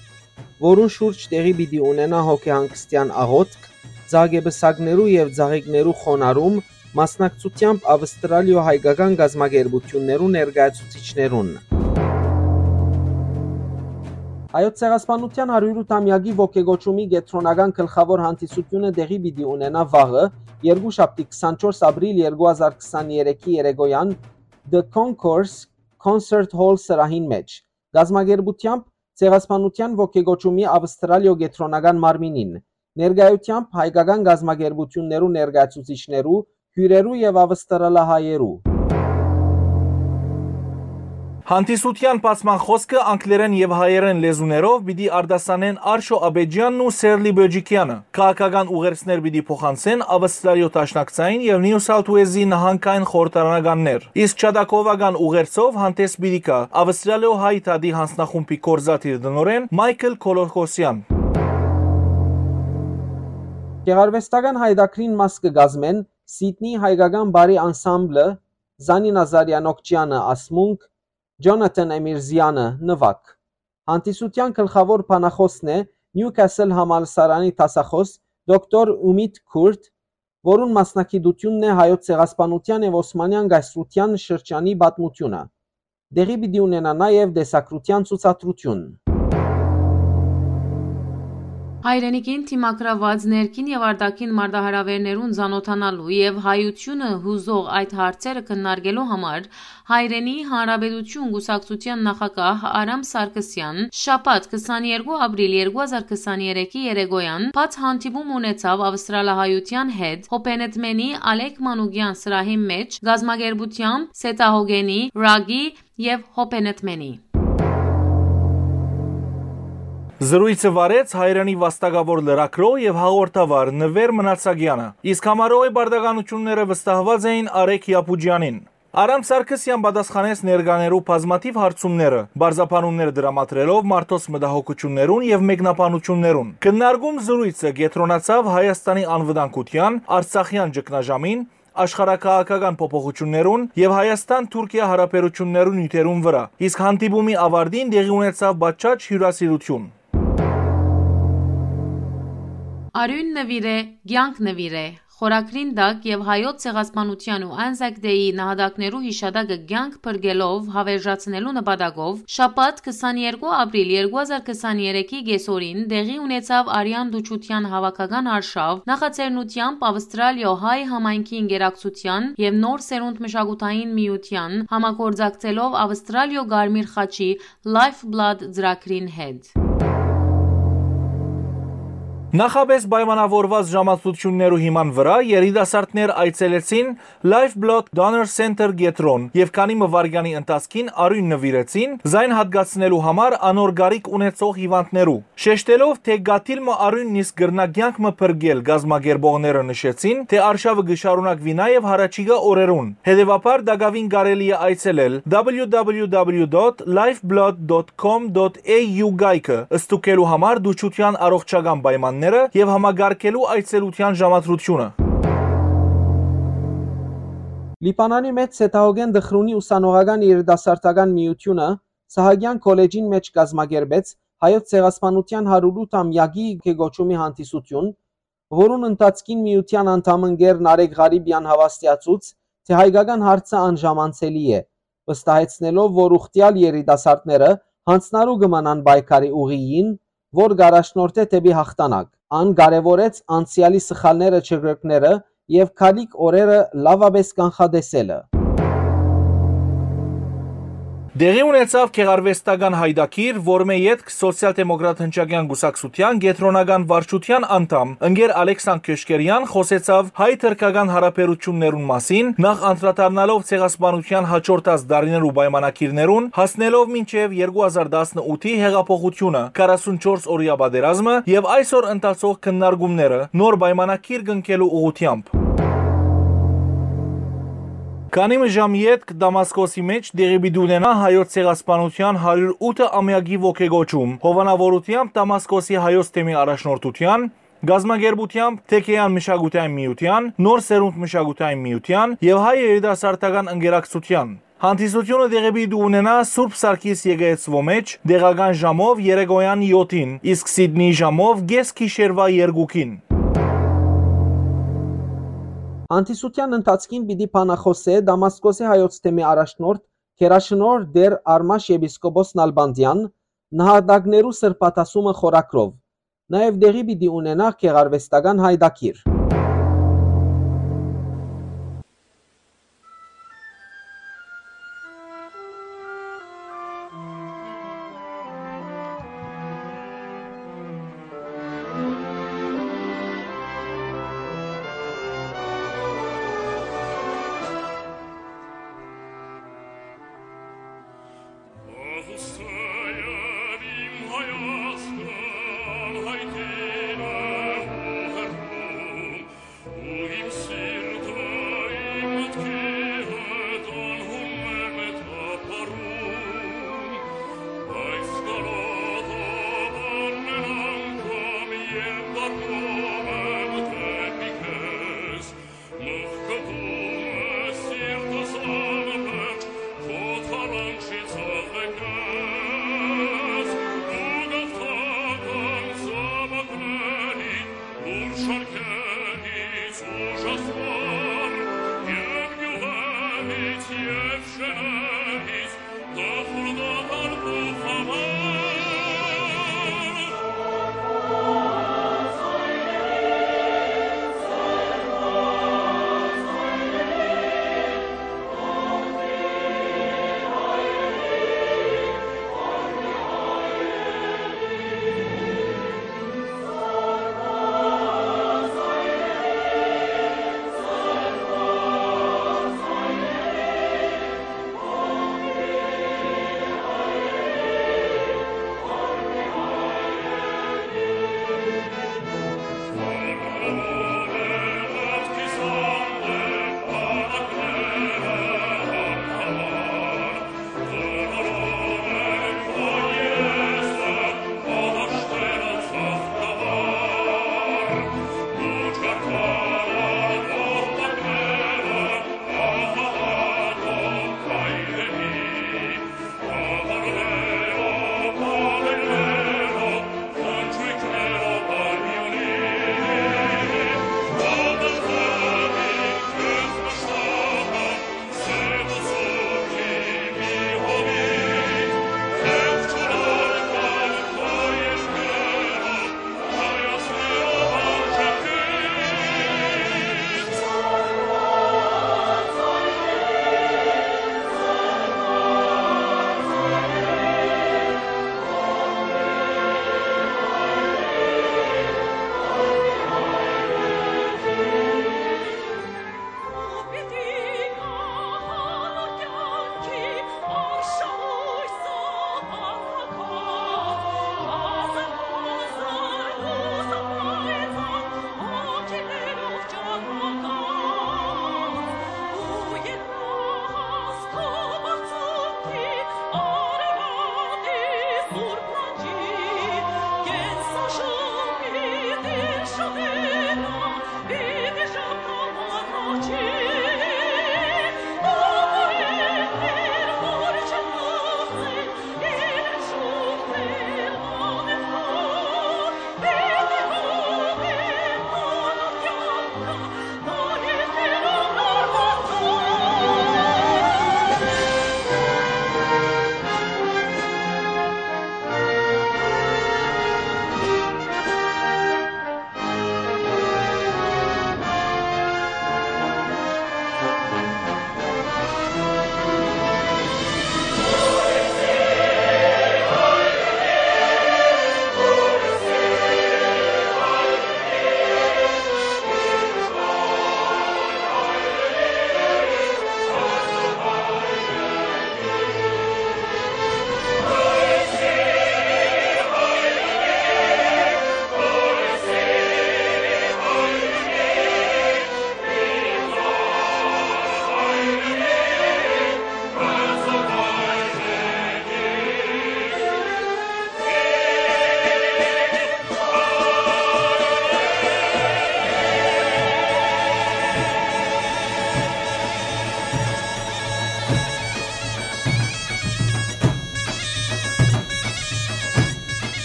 որուն շուրջ տեղի պիտի ունենայ հոգեհանգստեան աղօթք, ծաղկեպսակներու եւ ծաղիկներու խոնարհում, մասնակցութեամբ Ավստրալիոյ հայկական կազմակերպութիւններու ներկայացուցիչներուն։ Հայոց ցեղասպանութեան հարիւր ութամեակի ոգեկոչումի կեդրոնական գլխաւոր հանդիսութիւնը տեղի պիտի ունենայ վաղը, երկուշաբթի քսանչորս ապրիլ երկու հազար քսաներեքի երեկոյեան The Concourse Concert Hall սրահին մէջ, կազմակերպութեամբ Ցեղասպանութեան ոգեկոչումի Ավստրալիոյ կեդրոնական մարմինին, ներկայութեամբ հայկական կազմակերպութիւններու ներկայացուցիչներու, հիւրերու եւ ավստրալահայերու։ Հանդիսութեան բացման խօսքը անգլերէն եւ հայերէն լեզուներով պիտի արտասանեն Արշո Աբեջյանն ու Սերլի Բոջիկեանը։ Քաղաքական ուղերձներ պիտի փոխանցեն Ավստրալիոյ Դաշնակցային եւ Նիու Սաութ Ուելզի նահանգային խորհրդարանականներ, իսկ յատակովական ուղերձով հանդես պիտի գայ Ավստրալիոյ հայ դատի յանձնախումբի գործադիր տնօրէն Մայքլ Քոլոքոսեան։ Գեղարուեստական յայտագրին մաս կը կազմեն Սիդնի հայկական պարի անսամբլը, Զանի Նազարեան Օքճեանը Ասմունք, Ջոնաթան Էմիրզեանը, նուագ։ Հանդիսութեան գլխաւոր բանախօսն է Նիուքասլ համալսարանի դասախօս դոկտոր Ումիտ Քուրտ, որուն մասնակցութիւնն է Հայոց ցեղասպանութեան եւ Օսմանեան կայսրութեան շրջանի պատմութիւնը։ Տեղի պիտի ունենայ նաեւ տեսագրութեան ցուցադրութիւն։ Հայրենիքին դիմագրաւած ներքին եւ արտաքին մարտահրաւէրներուն ծանօթանալու եւ հայութիւնը յուզող այդ հարցերը քննարկելու համար Հայրենի Հանրապետութիւն կուսակցութեան նախագահ Արամ Սարգսեան շաբաթ քսաներկու ապրիլ երկու հազար քսաներեքի երեկոյան բաց հանդիպում ունեցաւ Ավստրալահայութեան հետ Հոփենեթմենի Ալեք Մանուկեան սրահին մէջ կազմակերպութեամբ Սեթահոգենի, Ռագի եւ Հոփենեթմենի։ Զրոյցը վարեց Հայրենի վաստակաւոր լրագրող եւ հաղորդավար Նուէր Մնացագեանը, իսկ համարողի պարտականութիւնները վստահուած էին Արեգ Յապուջեանին։ Արամ Սարգսեան պատասխանեց ներկաներու բազմաթիւ հարցումները, պարզաբանումներ դրամատրելով մարդոց մտահոգութիւններուն եւ մեկնաբանութիւններուն։ Քննարկում զրոյցը կեդրոնացաւ Հայաստանի անվտանգութեան, արցախեան ճգնաժամին, աշխարհաքաղաքական փոփոխութիւններուն եւ Հայաստան-Թուրքիա յարաբերութիւններու նիւթերուն վրայ, իսկ հանդիպումի աւարտին տեղի ունեցաւ պատշաճ հիւրասիրութիւն։ Արիւն նուիրէ, կեանք նուիրէ։ Խորագրին տակ եւ Հայոց ցեղասպանութեան ու Անզակ Դեյի նահատակներու յիշատակը կեանք փրկելով հաւերժացնելու նպատակով շաբաթ քսաներկու ապրիլ երկու հազար քսաներեքի կեսօրին տեղի ունեցաւ Արեան Տուչութեան հաւաքական արշաւ նախաձեռնութեամբ Ավստրալիոյ հայ համայնքի ինկերակցութեան եւ Նոր Սերունդ մշակութային միութեան համագործակցելով Ավստրալիոյ Կարմիր խաչի Lifeblood ծրագրին հետ։ Նախապէս պայմանաւորուած ժամադրութիւններու հիման վրայ երիտասարդներ այցելեցին Lifeblood Donor Center կեդրոն եւ քանի մը վայրկեանի ընթացքին արիւն նուիրեցին զայն յատկացնելու համար անոր կարիք ունեցող հիւանդներու։ Շեշտելով, թէ կաթիլ մը արիւնն իսկ կրնայ կեանք մը փրկել, կազմակերպողները նշեցին, թէ արշաւը կը շարունակուի նաեւ յառաջիկայ օրերուն։ Հետեւաբար, տակաւին կարելի է այցելել www.lifeblood.com.au կայքը, ստուգելու համար դուչութեան առողջական պայմանները եւ համակարգելու այցելութեան ժամադրութիւնը։ Լիբանանի մէջ Սեթահոգեն Դխրունի ուսանողական երիտասարդական միութիւնը Սահակեան քոլեջին մէջ կազմակերպեց Հայոց ցեղասպանութեան հարիւր ութ ամեակի կոչումի հանդիսութիւն, որուն ընթացքին միութեան անդամ ընկեր Նարեկ Ղարիպեան հաւաստիացուց, թէ հայկական հարցը անժամանցելի է, վստահեցնելով, որ ուխտեալ երիտասարդները յանձնառու կը մնան պայքարի ուղիին, որ կ'առաջնորդէ դէպի յաղթանակ։ Ան կարեւորեց անցեալի սխալները չկրկնելը եւ գալիք օրերը լաւապէս կանխատեսելը։ Տեղի ունեցաւ գեղարուեստական յայտագիր, որմէ ետք Սոցիալ-դեմոկրատ հնչակեան կուսակցութեան կեդրոնական վարչութեան անդամ ընկեր Ալեքսան Քյոշկերեան խօսեցաւ հայ-թրքական յարաբերութիւններուն մասին, նախ անդրադառնալով ցեղասպանութեան յաջորդած տարիներու պայմանագիրներուն, հասնելով մինչեւ երկու հազար տասնութի հեղափոխութիւնը, քառասունչորս օրեայ պատերազմը եւ այսօր ընթացող քննարկումները նոր պայմանագիր կնքելու ուղղութեամբ։ Քանի մը ժամ ետք Դամասկոսի մէջ տեղի պիտի ունենայ Հայոց ցեղասպանութեան հարիւր ութ ամեակի ոգեկոչում, հովանաւորութեամբ Դամասկոսի Հայոց թեմի առաջնորդութեան, կազմակերպութեամբ Թեքեան մշակութային միութեան, Նոր Սերունդ մշակութային միութեան եւ Հայ երիտասարդական ընկերակցութեան։ Հանդիսութիւնը տեղի պիտի ունենայ Սուրբ Սարգիս եկեղեցւոյ մէջ տեղական ժամով երեկոյան յոթին, իսկ Սիդնիի ժամով կէս գիշերուայ երկուքին։ Հանդիսութեան ընթացքին պիտի բանախօսէ Դամասկոսի Հայոց թեմի առաջնորդ գերաշնորհ Տէր Արմաշ եպիսկոպոս Նալբանդեան, նահատակներու սրբադասումը խորագրով։ Նաեւ տեղի պիտի ունենայ գեղարուեստական յայտագիր։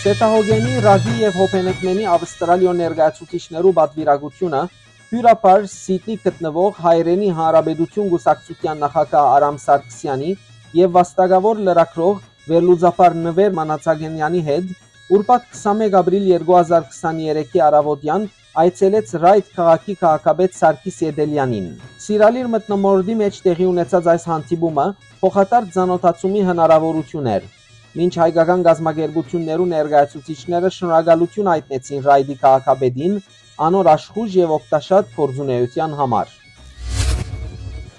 Սեթահոգենի, Ռագի եւ Հոփենեքմենի Ավստրալիոյ ներկայացուցիչներու պատվիրակութիւնը հիւրապար Սիդնի գտնուող Հայերէնի Հանրապետութիւն կուսակցութեան նախագահ Արամ Սարգսեանի եւ վաստակաւոր լրագրող, վերլուծաբան Նուէր Մանացագենեանի հետ ուրբաթ քսանմէկ ապրիլ երկու հազար քսաներեքի առաւօտեան այցելեց Ռայդ քաղաքի քաղաքապետ Սարգիս Ետելեանին։ Սիրալիր մթնամորտի մէջ տեղի ունեցած այս հանդիպումը փոխադարձ ծանօթացումի հնարաւորութիւն էր, մինչ հայկական կազմակերպութիւններու ներկայացուցիչները շնորհակալութիւն յայտնեցին Ռայդի քաղաքապետին անոր աշխոյժ եւ օգտաշատ գործունէութեան համար։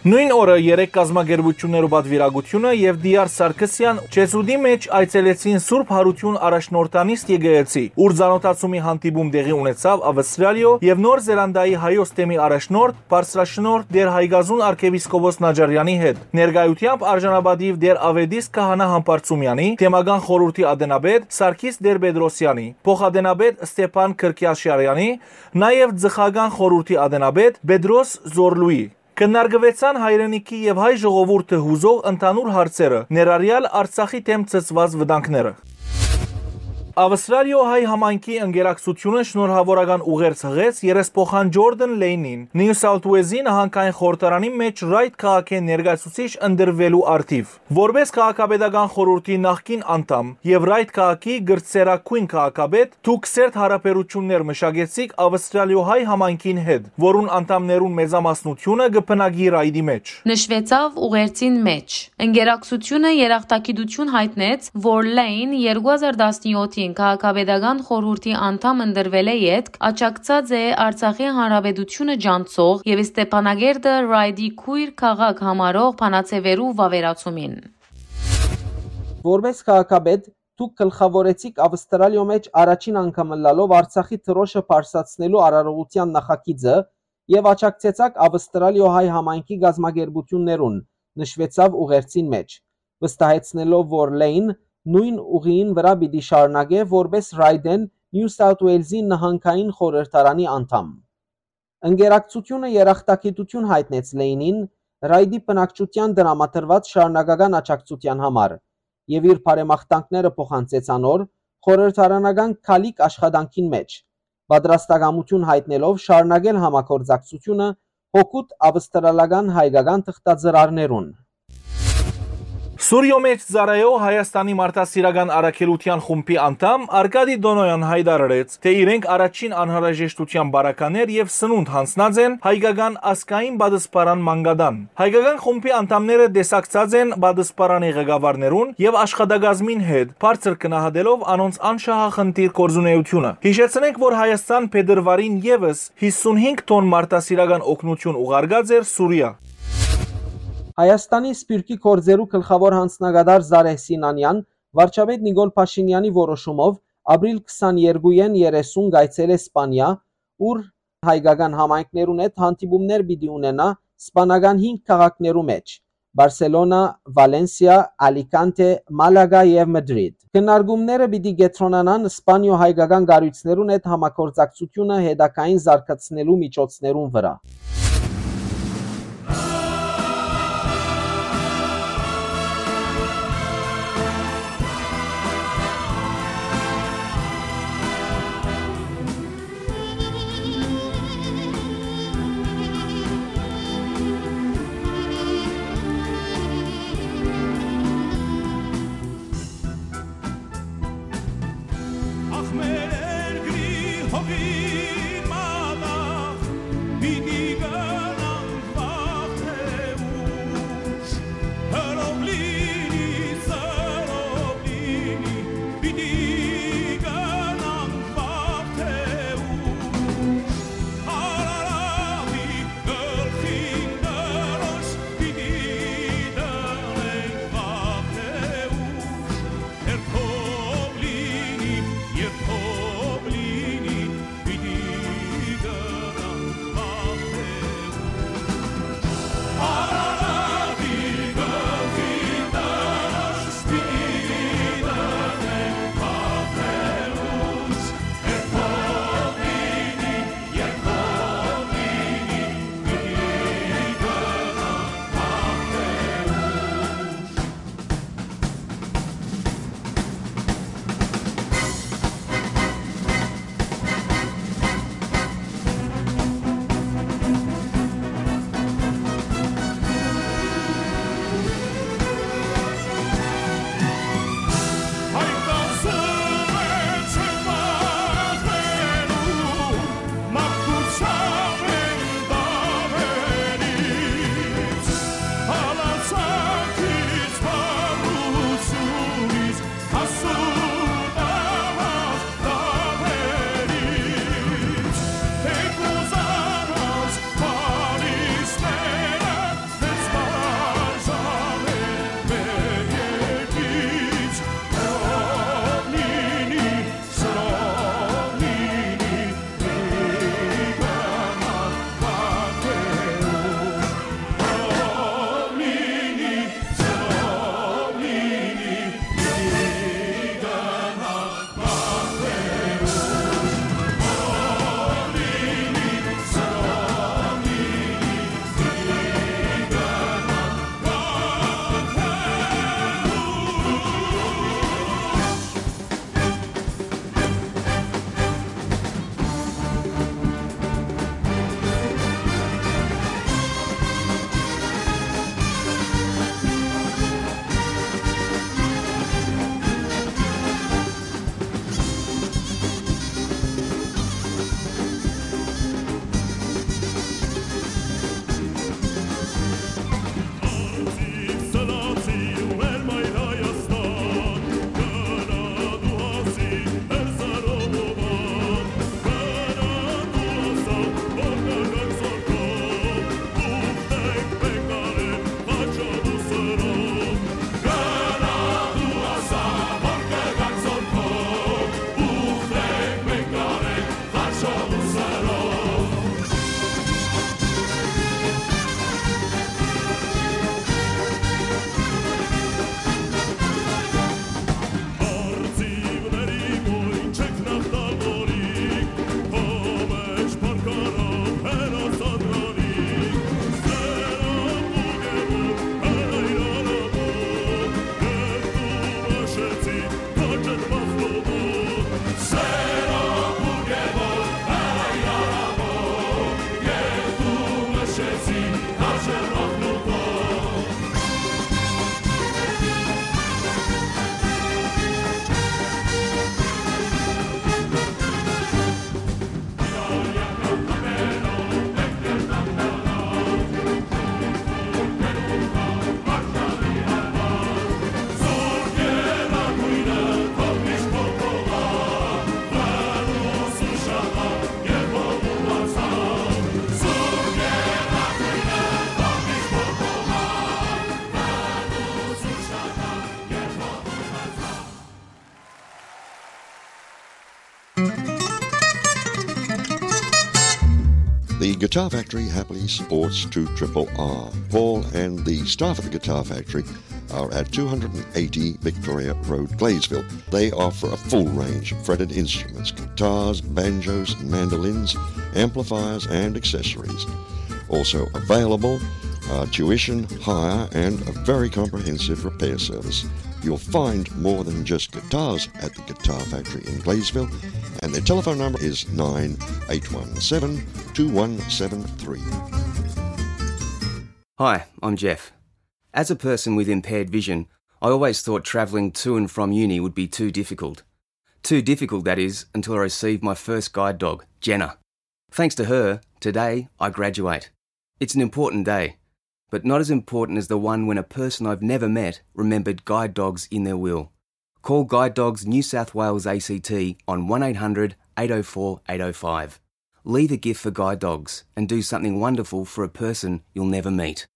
Նոյն օրը երեք կազմակերպութիւններու պատվիրակութիւնը եւ Դիար Սարգսեան Չեզուտի մէջ այցելեցին Սուրբ Յարութիւն առաջնորդանիստ եկեղեցի, ուր ծանօթացումի հանդիպում տեղի ունեցաւ Ավստրալիոյ եւ Նոր Զելանդիայի հայոց թեմի առաջնորդ, բարձրաշնորհ Տէր Հայկազուն արքեպիսկոպոս Նաճարեանի հետ։ Ներկայութեամբ արժանապատիւ Տէր Աւետիս քահանայ Համբարձումեանի, թեմական խորհուրդի ատենապետ Սարգիս Տեր-Պետրոսեանի, փոխատենապետ Ստեփան Քրքիաշարեանի, նաեւ ծխական խորհուրդի ատենապետ Պետրոս Զորլուի։ Քննարկուեցան հայրենիքի եւ հայ ժողովուրդը յուզող ընդհանուր հարցերը, ներառյալ Արցախի դէմ ցցուած վտանգները։ Ավստրալիոյ հայ համայնքի ընկերակցութիւնը շնորհաւորական ուղերձ յղեց երեսփոխան Ջորդան Լէյնին, Նիու Սաութ Ուելզի նահանգային խորհրդարանի մէջ Ռայթ քաղաքէն ներկայացուցիչ ընտրուելու առթիւ։ Որպէս քաղաքապետական խորհուրդի նախկին անդամ եւ Ռայթ քաղաքի կրտսերագոյն քաղաքապետ, դուք սերտ յարաբերութիւններ մշակեցիք Ավստրալիոյ հայ համայնքին հետ, որուն անդամներուն մեծամասնութիւնը կը բնակի Ռայթի մէջ։ Նշուեցաւ ուղերձին մէջ։ Ընկերակցութիւնը երախտագիտութիւն յայտնեց, որ Լէյն երկու հազար տասնեօթին քաղաքապետական խորհուրդի անդամ ընտրուելէ ետք աջակցած է Արցախի հանրապետութիւնը ճանչցող եւ Ստեփանակերտը Ռայթի քոյր քաղաք համարող բանաձեւերու վաւերացումին։ Որպէս քաղաքապետ, դուք գլխաւորեցիք Ավստրալիոյ մէջ առաջին անգամ ըլլալով Արցախի դրօշը բարձրացնելու արարողութեան նախագիծը եւ աջակցեցաք Ավստրալիոյ հայ համայնքի կազմակերպութիւններուն, նշուեցաւ ուղերձին մէջ, վստահեցնելով, որ Լէյն նոյն ուղիին վրայ պիտի շարունակէ որպէս Ռայթէն Նիու Սաութ Ուելզի նահանգային խորհրդարանի անդամ։ Ընկերակցութիւնը երախտագիտութիւն յայտնեց Լէյնին Ռայթի բնակչութեան տրամադրուած շարունակական աջակցութեան համար եւ իր բարեմաղթանքները փոխանցեց անոր խորհրդարանական քալիք աշխատանքին մէջ, պատրաստակամութիւն յայտնելով շարունակել համագործակցութիւնը հօգուտ ավստրալական հայկական թղթածրարներուն։ Սուրիոյ մէջ ծառայող Հայաստանի մարդասիրական առաքելութեան խումբի անդամ Արկադի Տոնոյան յայտարարեց, թէ իրենք առաջին անհրաժեշտութեան պարագաներ եւ սնունդ յանձնած են հայկական ազգային պատսպարան մանկատան։ Հայկական խումբի անդամները տեսակցած են պատսպարանի ղեկավարներուն եւ աշխատակազմին հետ, բարձր գնահատելով անոնց անշահախնդիր գործունեութիւնը։ Յիշեցնենք, որ Հայաստան փետրուարին եւս հիսունհինգ թոն մարդասիրական օգնութիւն ուղարկած էր Սուրիա։ Հայաստանի սփիւռքի գործերու գլխաւոր յանձնակատար Զարեհ Սինանեան վարչապետ Նիկոլ Փաշինեանի որոշումով ապրիլ քսաներկուին երեսուն կայցելէ Սպանիա, ուր հայկական համայնքներուն հետ հանդիպումներ պիտի ունենայ սպանական հինգ քաղաքներու մէջ՝ Բարսելոնա, Վալենսիա, Ալիքանթէ, Մալագա եւ Մդրիդ։ Քննարկումները պիտի կեդրոնանան Սպանիոյ հայկական կառոյցներուն հետ համագործակցութիւնը հետագային զարգացնելու միջոցներուն վրայ։ Ախ, մեր երկրի հողին մատաղ պիտի The Guitar Factory happily supports two triple R. Paul and the staff at the Guitar Factory are at two hundred and eighty Victoria Road, Gleysville. They offer a full range of fretted instruments, guitars, banjos, mandolins, amplifiers, and accessories. Also available are tuition, hire, and a very comprehensive repair service. You'll find more than just guitars at the Guitar Factory in Gleysville, and their telephone number is nine eight one seven, two one seven three. Hi, I'm Jeff. As a person with impaired vision, I always thought travelling to and from uni would be too difficult. Too difficult, that is, until I received my first guide dog, Jenna. Thanks to her, today I graduate. It's an important day, but not as important as the one when a person I've never met remembered guide dogs in their will. Call Guide Dogs New South Wales A C T on one eight hundred, eight oh four, eight oh five. Leave a gift for Guide Dogs and do something wonderful for a person you'll never meet.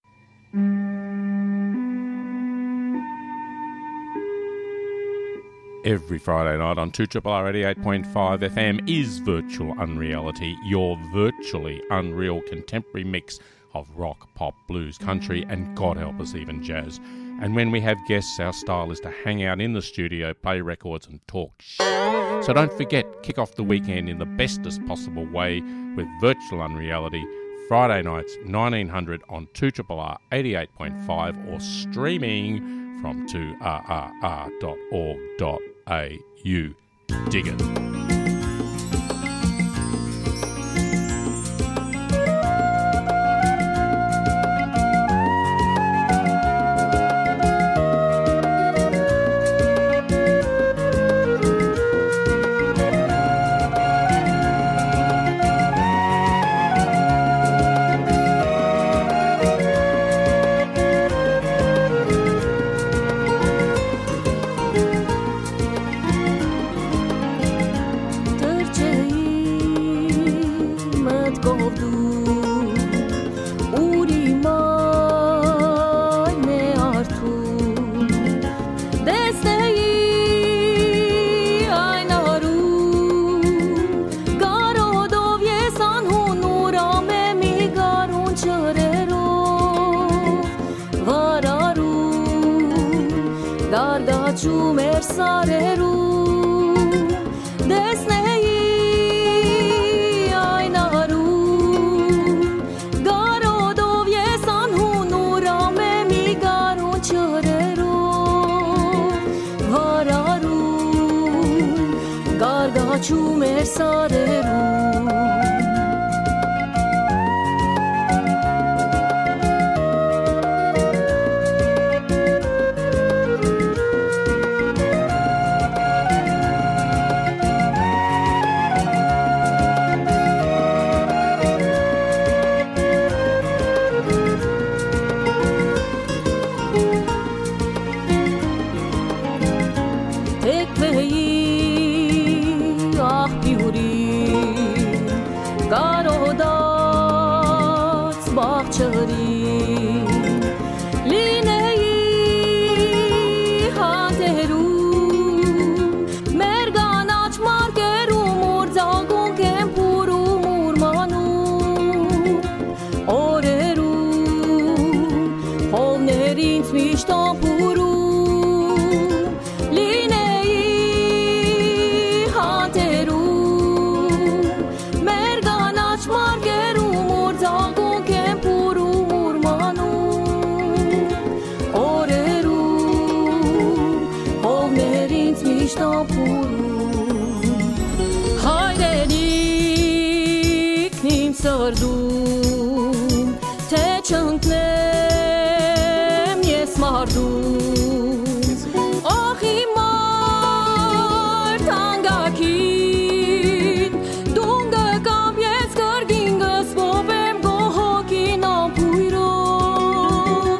Every Friday night on two triple R eighty-eight point five F M is Virtual Unreality, your virtually unreal contemporary mix of rock, pop, blues, country, and God help us, even jazz. And when we have guests, our style is to hang out in the studio, play records, and talk sh-. So don't forget, kick off the weekend in the bestest possible way with Virtual Unreality, Friday nights, nineteen hundred on two triple R eighty-eight point five, or streaming from two R R R dot org dot A U. Dig it. Թռչէի մտքով դու, ուր իմ այն է արթուն, տեսնէի այն արուն, կարոտով ես անհուն ուրամ է մի գարուն ջրերով, վարարուն, գարգաչում էր սարերուն, տեսնէի այն արուն, կարոտով ես անհուն ուրամ է մի գարուն ջրերով, վարարուն, գարգաչում էր սարերուն։ Թեքվէի աղբիուրի, կարոտած բաղ ջրի, լինէի հանդերու, մեր կանաչ մարկերու, ուր ձագունք են փուռում, ուրմանում օրերու, հովներ ինձ միշտ ամփուրում, լինէի հանդերու, մեր կանաչ մարկերու, ուր ձագունք են փուռում, ուրմանում օրերու, հովներ ինձ միշտ ամփուրում։ Հայրենիքն իմ սրտում, թե չընկնեմ ես մարդուն, ախ իմ մարդ անգակին, դուն կգամ ես կրկին, կսպոպեմ քո հոգին ամբույրով,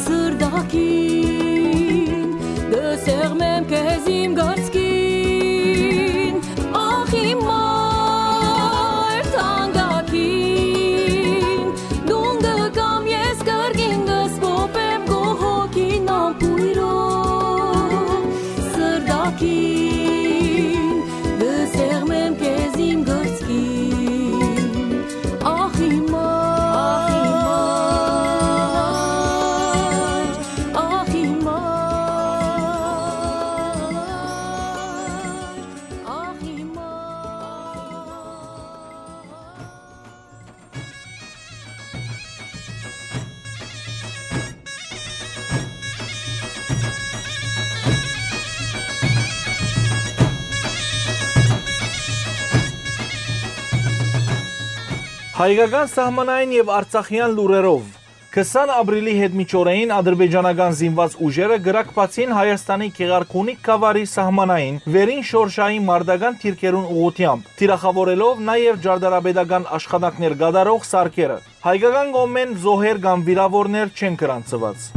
սրտակին, կսեղմեմ քեզ իմ կրծքին, ախ իմ մարդ անգակին, դուն կգամ ես կրկին, կսպոպեմ քո հոգին ամբույրով, սրտակին, կսեղմեմ քեզ իմ կրծքին, ախ իմ Հայկական սահմանային եւ արցախեան լուրերով։ Քսան ապրիլի յետմիջօրէն ադրբեջանական զինուած ուժերը կրակպացին Հայաստանի Գեղարքունիք գաւառի սահմանային վերին շորշային մարտական դիրքերուն ուղղութեամբ, թիրախաւորելով նաեւ ճարտարապետական աշխատանքներ կատարող սարքերը։ Հայկական կողմէն զոհեր կամ վիրաւորներ չեն գրանցուած։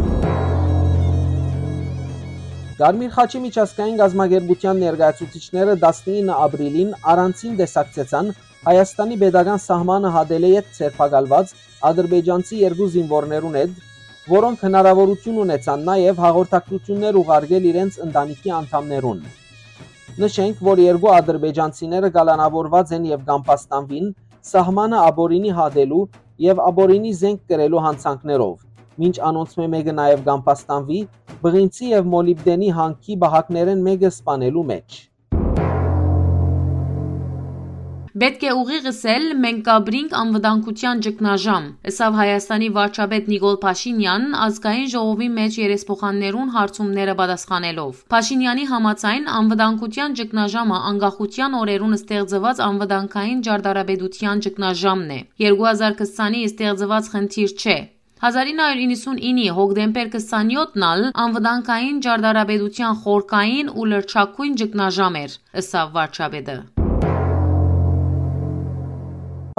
Կարմիր խաչի միջազգային կազմակերպութեան ներկայացուցիչները տասնինը ապրիլին առանձին տեսակցեցան Հայաստանի պետական սահմանը հատելէ յետ ձերբակալուած ադրբեջանցի երկու զինուորներուն հետ, որոնք հնարաւորութիւն ունեցան նաեւ հաղորդակցութիւններ ուղարկել իրենց ընտանիքի անդամներուն։ Նշենք, որ երկու ադրբեջանցիները կալանաւորուած են եւ կամբաստանուին սահմանը ապօրինի հատելու եւ ապօրինի զենք կրելու յանցանքներով, մինչ անոնցմէ մէկը նաեւ կամբաստանուի բղինցի եւ մոլիբդենի հանքի պահակներէն մէկը սպանելու մէջ։ Պէտք է ուղիղ ըսել, մենք կ'ապրինք անվտանգութեան ճգնաժամ, ըսաւ Հայաստանի վարչապետ Նիկոլ Փաշինեան՝ ազգային ժողովի մէջ երեսփոխաններուն հարցումները պատասխանելով։ Փաշինեանի համաձայն, անվտանգութեան ճգնաժամը անկախութեան օրերուն ստեղծուած անվտանգային ճարտարապետութեան ճգնաժամն է։ Երկու հազար քսանի ստեղծուած խնդիր չէ։ Հազար ինը հարյուր իննսունինի հոկտեմբեր քսանեօթն ալ անվտանգային ճարտարապետութեան խորքային ու լրջագոյն ճգնաժամ էր, ըսաւ վարչապետը։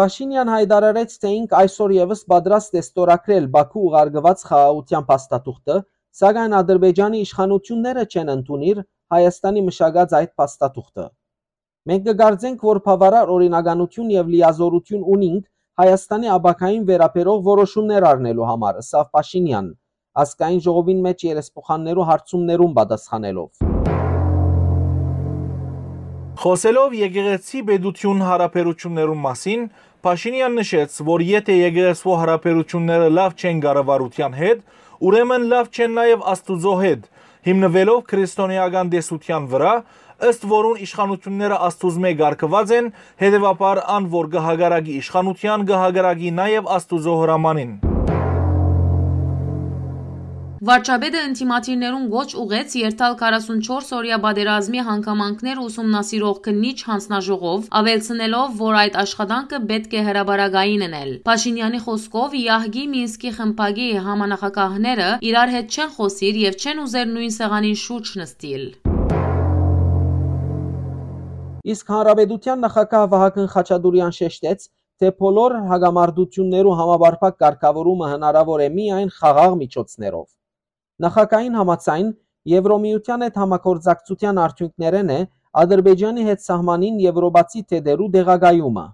Փաշինեան յայտարարեց, թէ ինք այսօր եւս պատրաստ է ստորագրել Բաքու ուղարկուած խաղաղութեան փաստաթուղթը, սակայն Ադրբեջանի իշխանութիւնները չեն ընդունիր Հայաստանի մշակած այդ փաստաթուղթը։ Մենք կը կարծենք, որ բաւարար օրինականութիւն եւ լիազօրութիւն ունինք Հայաստանի ապագային վերաբերող որոշումներ առնելու համար, ըսաւ Փաշինեան, ազգային ժողովին մէջ երեսփոխաններու հարցումներուն պատասխանելով։ Խոսելով եկեղեցի-պետութիւն յարաբերութիւններուն մասին, Փաշինեան նշեց, որ եթէ եկեղեցւոյ յարաբերութիւնները լաւ չեն կառավարութեան հետ, ուրեմն լաւ չեն նաեւ Աստուծոյ հետ, հիմնուելով քրիստոնէական տեսութեան վրայ, ըստ որուն իշխանութիւնները Աստուծմէ կարգուած են, հետեւաբար ան որ կը հակառակի իշխանութեան, կը հակառակի նաեւ Աստուծոյ հրամանին։ Վարչապետը ընդդիմադիրներուն կոչ ուղղեց երթալ քառասունչորս օրեայ պատերազմի հանգամանքներ ուսումնասիրող քննիչ յանձնաժողով, աւելցնելով, որ այդ աշխատանքը պէտք է հրապարակային ընել։ Փաշինեանի խօսքով, Եահկի Մինսկի խմբակի համանախագահները իրար հետ չեն խօսիր եւ չեն ուզեր նոյն սեղանին շուրջ նստիլ։ Իսկ Հանրապետութեան նախագահ Վահագն Խաչատուրեան շեշտեց, թէ բոլոր հակամարտութիւններու համապարփակ կարգաւորումը հնարաւոր է միայն խաղաղ միջոցներով։ Նախագահին համաձայն, Եվրոմիութեան հետ համագործակցութեան արդիւնքներէն է Ադրբեջանի հետ սահմանին եվրոպացի թետերու տեղակայումը։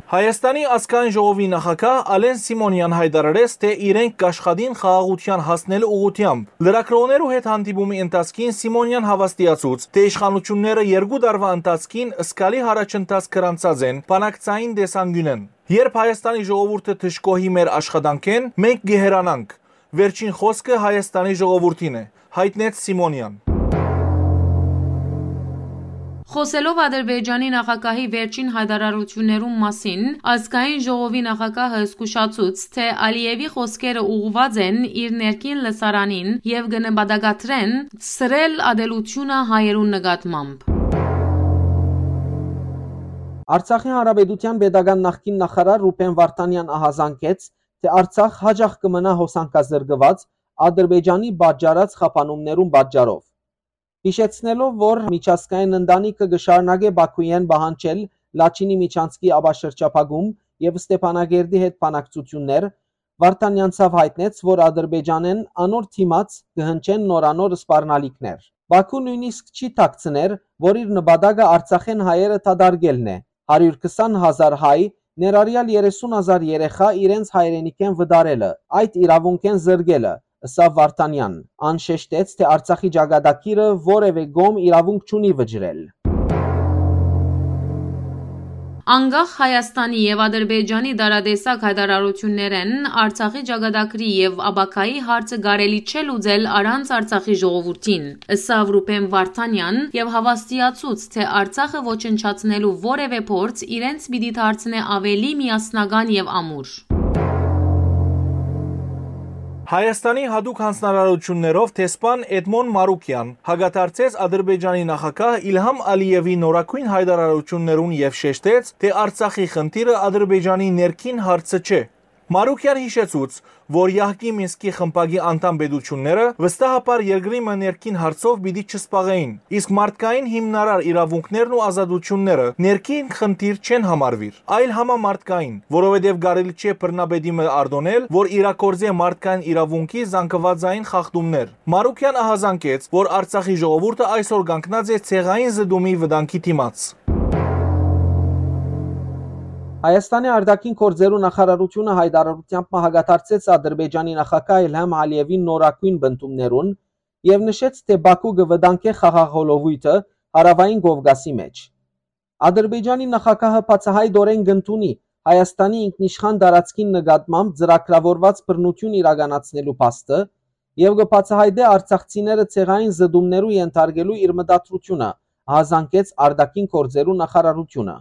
Հայաստանի ազգային ժողովի նախագահ Ալեն Սիմոնեան յայտարարեց, թէ իրենք կ'աշխատին խաղաղութեան հասնելու ուղղութեամբ։ Լրագրողներու հետ հանդիպումի ընթացքին Սիմոնեան հաւաստիացուց, թէ իշխանութիւնները երկու տարուայ ընթացքին զգալի յառաջընթաց գրանցած են բանակցային տեսանկիւնէն։ Երբ Հայաստանի ժողովուրդը դժգոհի մեր աշխատանքէն, մենք կը հեռանանք։ Վերջին խօսքը Հայաստանի ժողովուրդին է, յայտնեց Սիմոնեան։ Խօսելով Ադրբեջանի նախագահի վերջին յայտարարութիւններուն մասին, ազգային ժողովի նախագահը զգուշացուց, թէ Ալիեւի խօսքերը ուղղուած են իր ներքին լսարանին եւ կը նպատակադրեն սրել ատելութիւնը հայերուն նկատմամբ։ Արցախի Հանրապետութեան պետական նախկին նախարար Ռուբեն Վարդանեան ահազանգեց, թէ Արցախ յաճախ կը մնայ հոսանքազրկուած Ադրբեջանի պատճառած խափանումներուն պատճառով։ Յիշեցնելով, որ միջազգային ընտանիքը կը շարունակէ Բաքուէն պահանջել Լաչինի միջանցքի ապաշրջափակում եւ Ստեփանակերտի հետ բանակցութիւններ, Վարդանեան ցաւ յայտնեց, որ Ադրբեջանէն անոր դիմաց կը հնչեն նորանոր սպառնալիքներ։ Բաքու նոյնիսկ չի թաքցներ, որ իր նպատակը Արցախէն հայերը դատարկելն է, հարիւր քսան հազար հայ, ներառեալ երեսուն հազար երեխայ, իրենց հայրենիքէն վտարելը, այդ իրաւունքէն զրկելը, ըսաւ Վարդանեան։ Ան շեշտեց, թէ Արցախի ճակատագիրը որեւէ կողմ իրաւունք չունի վճռել։ Անկախ Հայաստանի եւ Ադրբեջանի տարատեսակ յայտարարութիւններէն Արցախի ճակատագրի եւ ապագայի հարցը կարելի չէ լուծել առանց Արցախի ժողովուրդին, ըսաւ Ռուբեն Վարդանեան եւ հաւաստիացուց, թէ Արցախը ոչնչացնելու որեւէ փորձ իրենց պիտի դարձնէ աւելի միասնական եւ ամուր։ Հայաստանի յատուկ յանձնարարութիւններով դեսպան Էդմոն Մարուկեան հակադարձեց Ադրբեջանի նախագահ Իլհամ Ալիեւի նորագոյն յայտարարութիւններուն եւ շեշտեց, թէ Արցախի խնդիրը Ադրբեջանի ներքին հարցը չէ։ Մարուկեան յիշեցուց, որ Յահկի Մինսկի խմբակի անդամ պետութիւնները վստահաբար երկրի մը ներքին հարցով պիտի չսպաղէին, իսկ մարդկային հիմնարար իրաւունքներն ու ազատութիւնները ներքին խնդիր չեն համարուիր, այլ համամարտկային, որովհետեւ կարելի չէ բռնապետի մը արտոնել, որ իրագործէ մարդկային իրաւունքի զանգուածային խախտումներ։ Մարուկեան ահազանգեց, որ Արցախի ժողովուրդը այսօր կանգնած է ցեղային զտումի վտանգի դիմաց։ Հայաստանի արտաքին գործերու նախարարութիւնը յայտարարութեամբ մը հակադարձեց Ադրբեջանի նախագահ Իլհամ Ալիեւին նորագոյն պնդումներուն եւ նշեց, թէ Բաքու կը վտանգէ խաղաղ հոլովոյթը Հարաւային Կովկասի մէջ։ Ադրբեջանի նախագահը բացայայտօրէն կ'ընդունի Հայաստանի ինքնիշխան տարածքին նկատմամբ ծրագրաւորուած բռնութիւն իրականացնելու փաստը եւ կը բացայայտէ արցախցիները ցեղային զտումներու ենթարկելու իր մտադրութիւնը, ահազանգեց արտաքին գործերու նախարարութիւնը։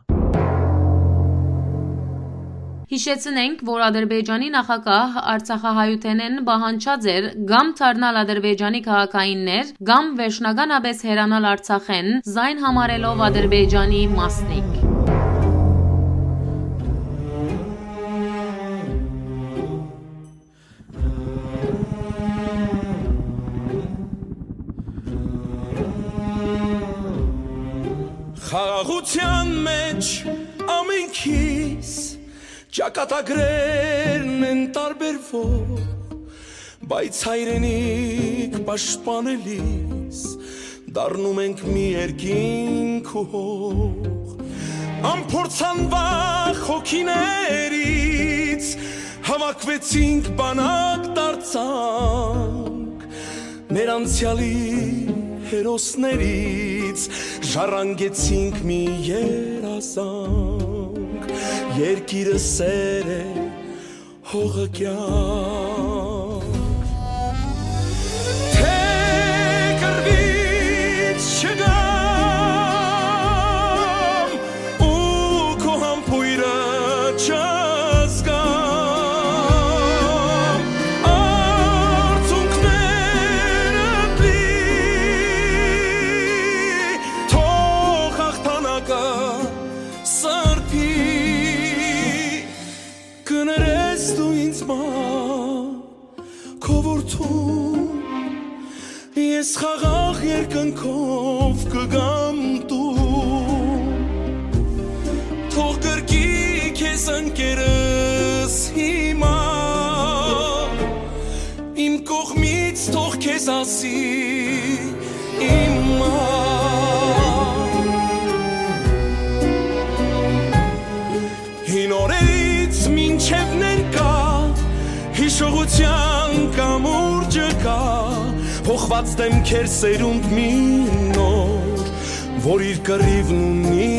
Յիշեցնենք, որ Ադրբեջանի նախագահ արցախահայութենէն պահանջած էր կամ դառնալ Ադրբեջանի քաղաքայիններ, կամ վերջնականապէս հեռանալ Արցախէն, զայն համարելով Ադրբեջանի մասնիկ։ Խաղաղութեան մէջ ամենքիս ճակատագրերն են տարբերվող, բայց հայրենիք պաշտպանելիս դառնում ենք մի երկինք ու հող։ Անփորձանվախ հոգիներից հավաքվեցինք, բանակ դարձանք, մեր անցեալի հերոսներից ժառանգեցինք մի երազանք։ Երկիրը սեր է, հողը կեանք։ Թէ կռվից չգամ ու քո համբոյրը չզգամ, արցունքներդ լի, թող հաղթանակը սրբի։ Կներես դու ինձ մա, քո որդուն, ես խաղաղ երկնքով կգամ տուն։ Թող գրկի քեզ ընկերս հիմա, իմ կողմից թող քեզ ասի իմ մա։ Հին օրերից մինչև ներկա, հիշողութեան կամուրջը կա, փոխված դեմքեր սերունդ մի նոր, որ իր կռիվն ունի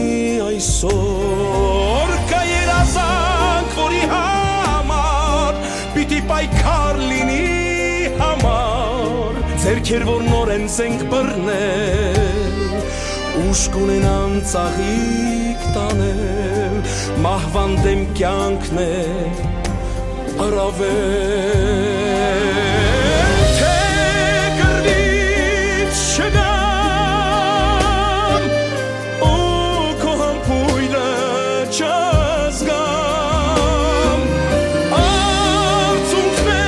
այսօր։ Կայ երազանք, որի համար պիտի պայքար լինի համար, ձեռքեր, որ նորեն զենք բռնել, ուժ կունենան ծաղիկ տանել, մահվան դէմ կեանքն է առավել, թէ կռվից չգամ ու քո համբոյրը չզգամ,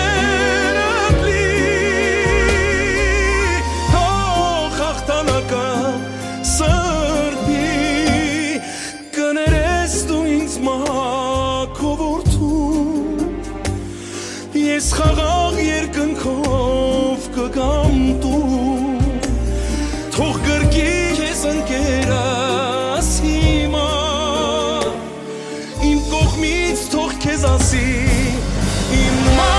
արցունքներդ լի, թող հաղթանակը սրբի, կներես դու ինձ մա, քո որդու, ես խաղաղ երկնքով կգամ տուն, թող գրկի քեզ ընկերս հիմա, իմ կողմից թող քեզ ասի իմ մա։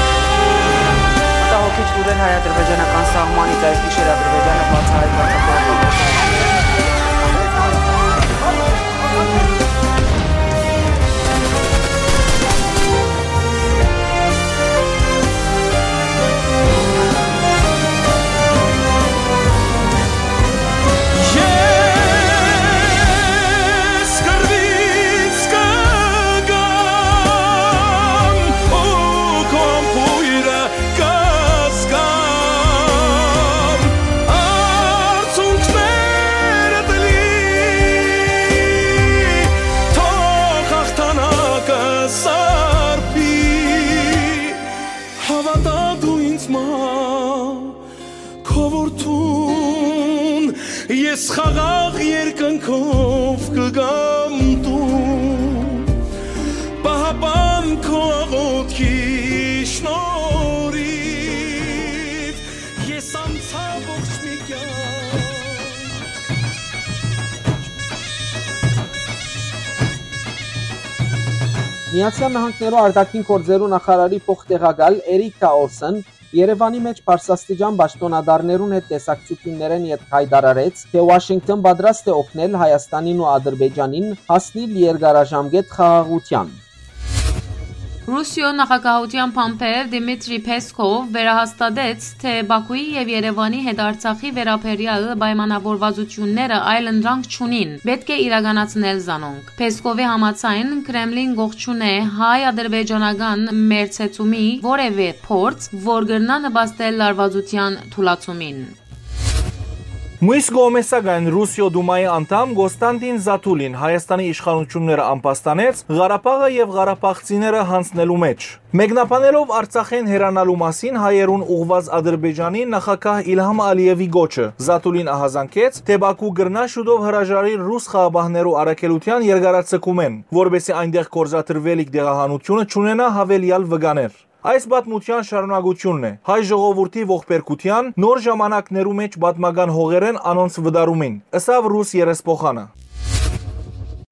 Մտահոգիչ լուրեր հայ-ադրբեջանական սահմանից։ Այս գիշեր Ադրբեջանը բացահայտված է Ես կռվից կգամ ու քո համբոյրը կը Որդուն ես խաղաղ երկնքով կգամ տուն, պահապան քո աղոթքի շնորհիվ ես անցա ողջ մի կյանք։ Միացյալ Նահանգներու արտաքին գործերու նախարարի փոխտեղակալ Էրիքա Օլսեն Երեւանի մէջ բարձրաստիճան պաշտօնատարներուն հետ տեսակցութիւններէն ետք յայտարարեց, թէ Ուաշինկթոն պատրաստ է օգնել Հայաստանին ու Ադրբեջանին հասնիլ երկարաժամկետ խաղաղութեան։ Ռուսիոյ նախագահութեան բանբեր Դիմիտրի Փեսքով վերահաստատեց, թէ Բաքուի եւ Երեւանի հետ Արցախի վերաբերեալ պայմանաւորուածութիւնները այլընտրանք չունին, պէտք է իրականացնել զանոնք։ Փեսքովի համաձայն, Քրեմլին կողջունէ հայ-ադրբեջանական մերձեցումի որեւէ փորձ, որ կրնայ նպաստել լարուածութեան թուլացումին։ Մյուս կողմէ, սակայն, Ռուսիոյ Դումայի անդամ Կոստանտին Զաթուլին Հայաստանի իշխանութիւնները ամբաստանեց Ղարաբաղը եւ ղարաբաղցիները յանձնելու մէջ։ Մեկնաբանելով Արցախէն հեռանալու մասին հայերուն ուղղուած Ադրբեջանի նախագահ Իլհամ Ալիեւի կոչը, Զաթուլին ահազանգեց, թէ Բաքու կրնայ շուտով հրաժարիլ ռուս խաղապահներու առաքելութեան երկարաձգումէն, որպէսզի այնտեղ գործադրուելիք տեղահանութիւնը չունենայ յաւելեալ վկաներ։ Այս պատմութեան շարունակութիւնն է հայ ժողովուրդի ողբերգութեան, նոր ժամանակներու մէջ պատմական հողերէն անոնց վտարումին, ըսաւ ռուս երեսփոխանը։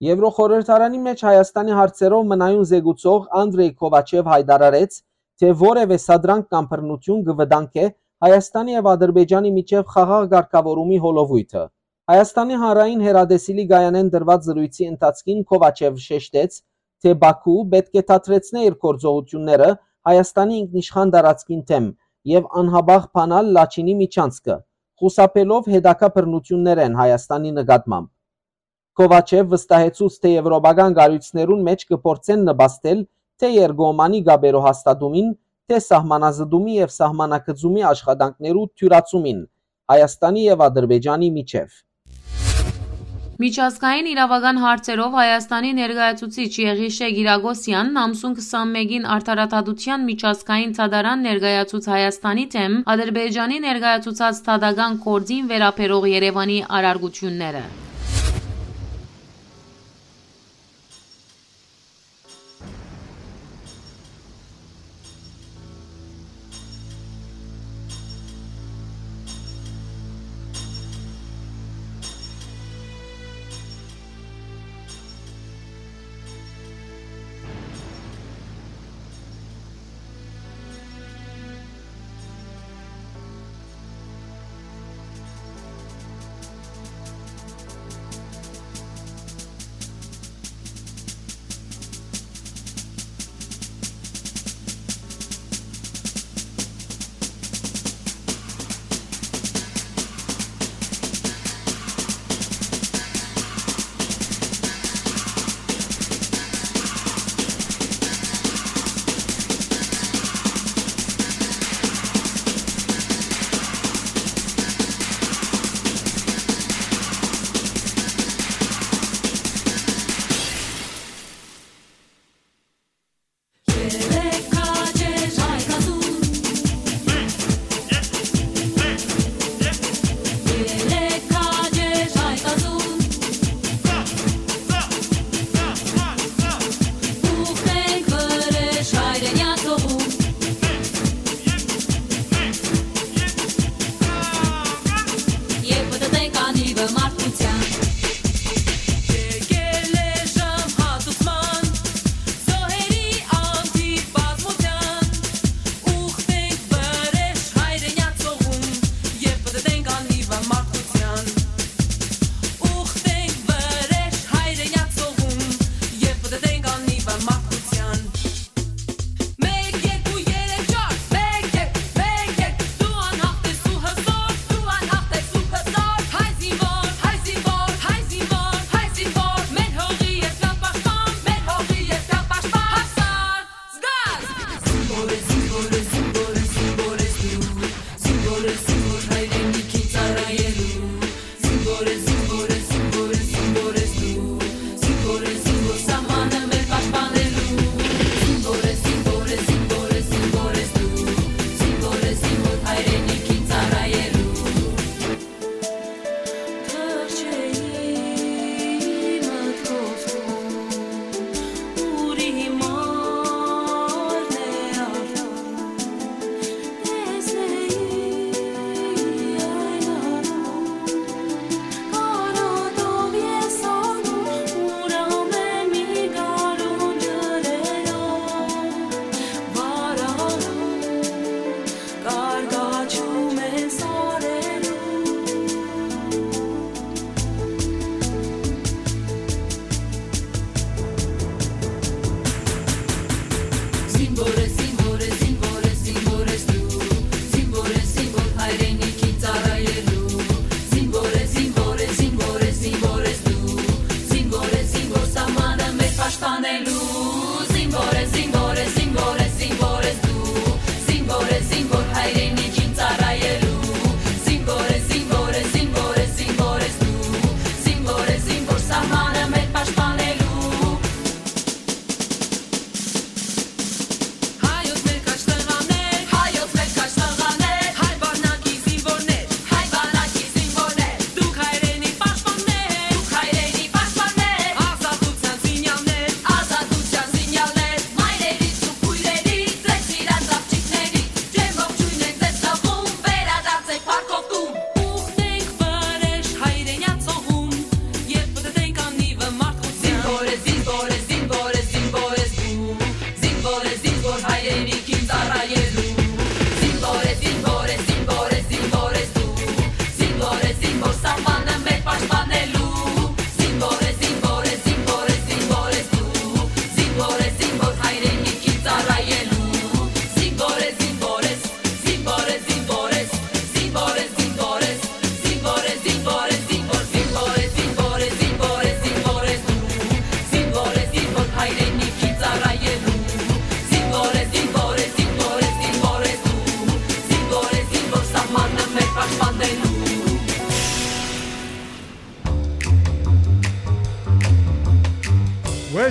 Եվրոխորհրդարանի մէջ Հայաստանի հարցերով մնայուն զեկուցող Անդրեյ Քովաչեւ յայտարարեց, թէ որեւէ սադրանք կամ բռնութիւն կը վտանգէ Հայաստանի եւ Ադրբեջանի միջեւ խաղաղ կարգաւորումի հոլովոյթը։ Հայաստանի հանրային հեռատեսիլի կայանէն տրուած զրոյցի ընթացքին Քովաչեւ շեշտեց, թէ Բաքու պէտք է դադրեցնէ իր գործողութիւնները Հայաստանի ինքնիշխան տարածքին դէմ եւ անհապաղ բանալ Լաչինի միջանցքը, խուսափելով հետագայ բռնութիւններէն Հայաստանի նկատմամբ։ Քովաչեւ վստահեցուց, թէ եվրոպական կառոյցներուն մէջ կը փորձեն նպաստել թէ երկկողմանի կապերու հաստատումին, թէ սահմանազտումի եւ սահմանակցումի աշխատանքներու դիւրացումին Հայաստանի եւ Ադրբեջանի միջեւ։ Միջազգային իրաւական հարցերով Հայաստանի ներկայացուցիչ Եղիշէ Կիրակոսեան ամսուն քսանմէկին Արդարադատության միջազգային դատարան ներկայացուց Հայաստանի դէմ Ադրբեջանի ներկայացուցած դատական գործին վերաբերող Երեւանի առարկութիւնները։ Եկել է ժամ հատուցման, զոհերի անթիվ բազմության, ուխտենք վրէժ հայրենյաց հողուն, երբ պտտենք անհիվը մարդկության։ Ուխտենք վրէժ հայրենյաց հողուն, երբ պտտենք անհիվը մարդկության։ Մեկ, երկու, երեք, չար, մեկ, երկու, մեկ, երկու, դու անհաղթ ես ու հզոր, դու անհաղթ ես ու հզոր, հայ զինվոր, հայ զինվոր,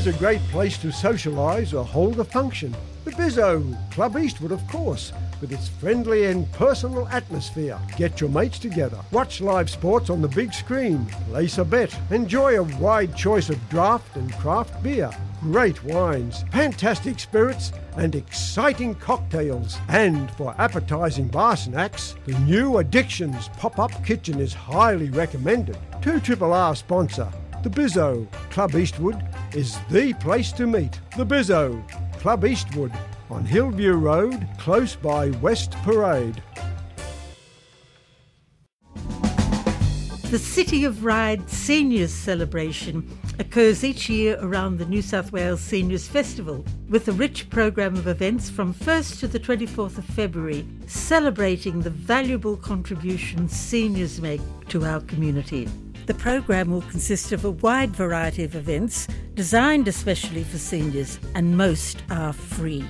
A great place to socialise or hold a function. The Bizzo, Club Eastwood, of course, with its friendly and personal atmosphere. Get your mates together, watch live sports on the big screen, place a bet, enjoy a wide choice of draft and craft beer, great wines, fantastic spirits, and exciting cocktails. And for appetising bar snacks, the new Addictions pop-up kitchen is highly recommended. Two Triple R sponsor, the Bizzo, Club Eastwood, is the place to meet. The Bizzo, Club Eastwood, on Hillview Road, close by West Parade. The City of Ryde Seniors Celebration occurs each year around the New South Wales Seniors Festival, with a rich programme of events from first to the twenty-fourth of February, celebrating the valuable contributions seniors make to our community. The programme will consist of a wide variety of events designed especially for seniors, and most are free.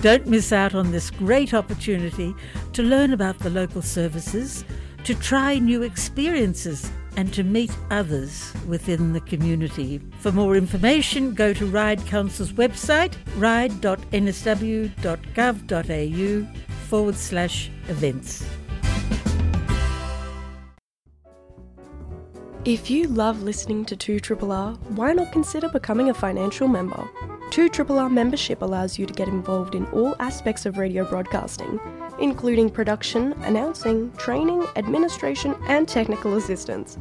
Don't miss out on this great opportunity to learn about the local services, to try new experiences, and to meet others within the community. For more information, go to Ryde Council's website, ryde dot n s w dot gov dot a u forward slash events. If you love listening to two triple R, why not consider becoming a financial member? two triple R membership allows you to get involved in all aspects of radio broadcasting, including production, announcing, training, administration, and technical assistance.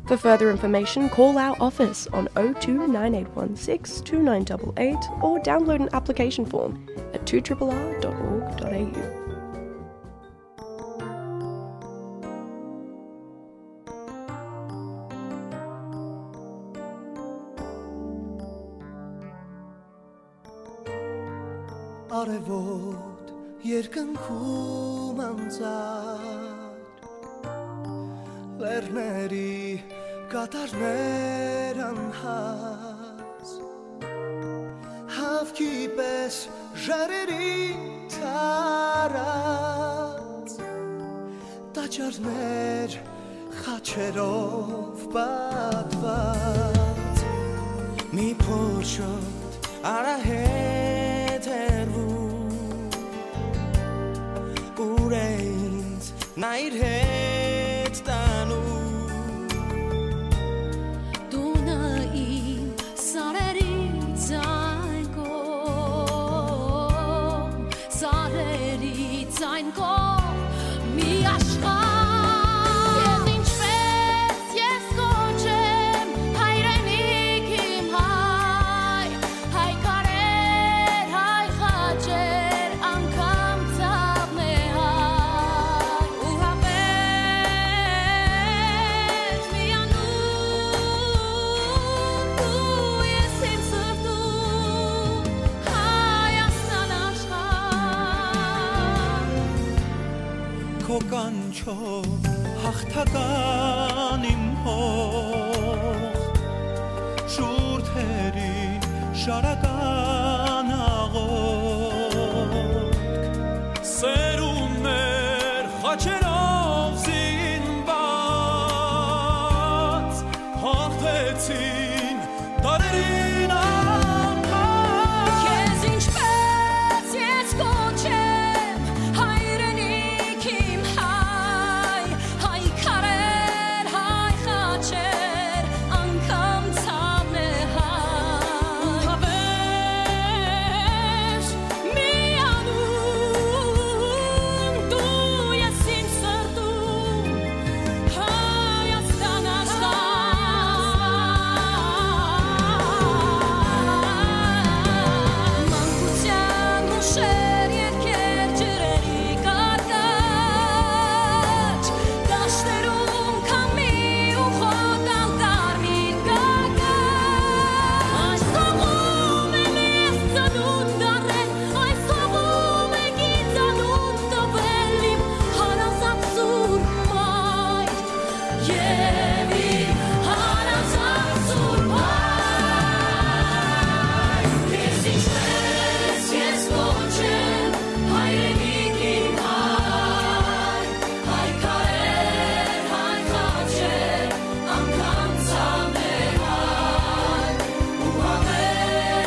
For further information, call our office on oh two nine eight one six two nine eight eight or download an application form at two triple R dot org dot a u. Արեւոտ երկնքում անցած, լեռների կատարներ անհաս, հաւքի պէս ժայռերին տարած, տաճարներ խաչերով պատված։ Մի փոքր շոտ արահետ հեռվում, ուր է ինձ նա իր հետ տանում։ Տունը իմ սարերից այն կողմ, սարերից այն կողմ, մի աշխարհ։ Ես ինչպես ես կոչեմ հայրենիք իմ հայ, հայ քարեր, հայ խաչեր, անգամ ցաւն է հայ, ու հավես միանում դու ես իմ սրտում, Հայաստան աշխարհ։ Քո կանչով հաղթական իմ հող, շուրթերին շարական աղոթք, սերունդներ խաչերով զինված, հաղթեցին դարերին անգամ։ Քեզ ինչպես ես կոչեմ, հայրենիք իմ հայ, հայ քարեր, հայ խաչեր, անգամ ցաւն է հայ, ու հավես միանում դու ես իմ սրտում, Հայաստան աշխարհ։ Մանկության հուշեր, երկեր, ջրերի կարկաչ, դաշտերում քամի ու խոտալ կարմիր կարկաչ։ Այս հողում եմ ես ծնունդ առել, այս հողում է գիծանուն տվել իմ հարազատ սուրբ մայր։ Եւ իմ հարազատ սուրբ հայր, քեզ ինչպես ես կոչեմ, հայրենիք իմ հայ, հայ քարեր, հայ խաչեր, անգամ ցաւն է հայ, ու հավես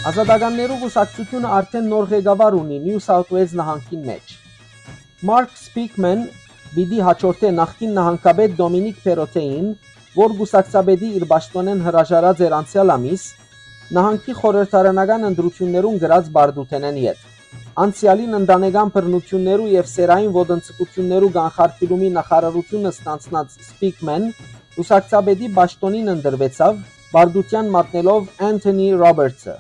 Ազատականներու կուսակցութիւնը արդէն նոր ղեկավար ունի Նիու Սաութ Ուէլզ նահանգին մէջ։ Մարկ Սպիքմեն պիտի հաջորդէ նախկին նահանգապետ Դոմինիկ Փերոթեին, որ կուսակցապետի իր պաշտօնէն հրաժարած էր անցեալ ամիս, նահանգի խորհրդարանական ընտրութիւններուն կրած պարտութենէն ետք։ Անցեալին ընտանեկան բռնութիւններու եւ սեռային ոտնձգութիւններու կանխարգիլումի նախարարութիւնը ստանձնած Սպիքմեն կուսակցապետի պաշտօնին ընտրուեցաւ, պարտութեան մատնելով Անթոնի Ռոբերտսը։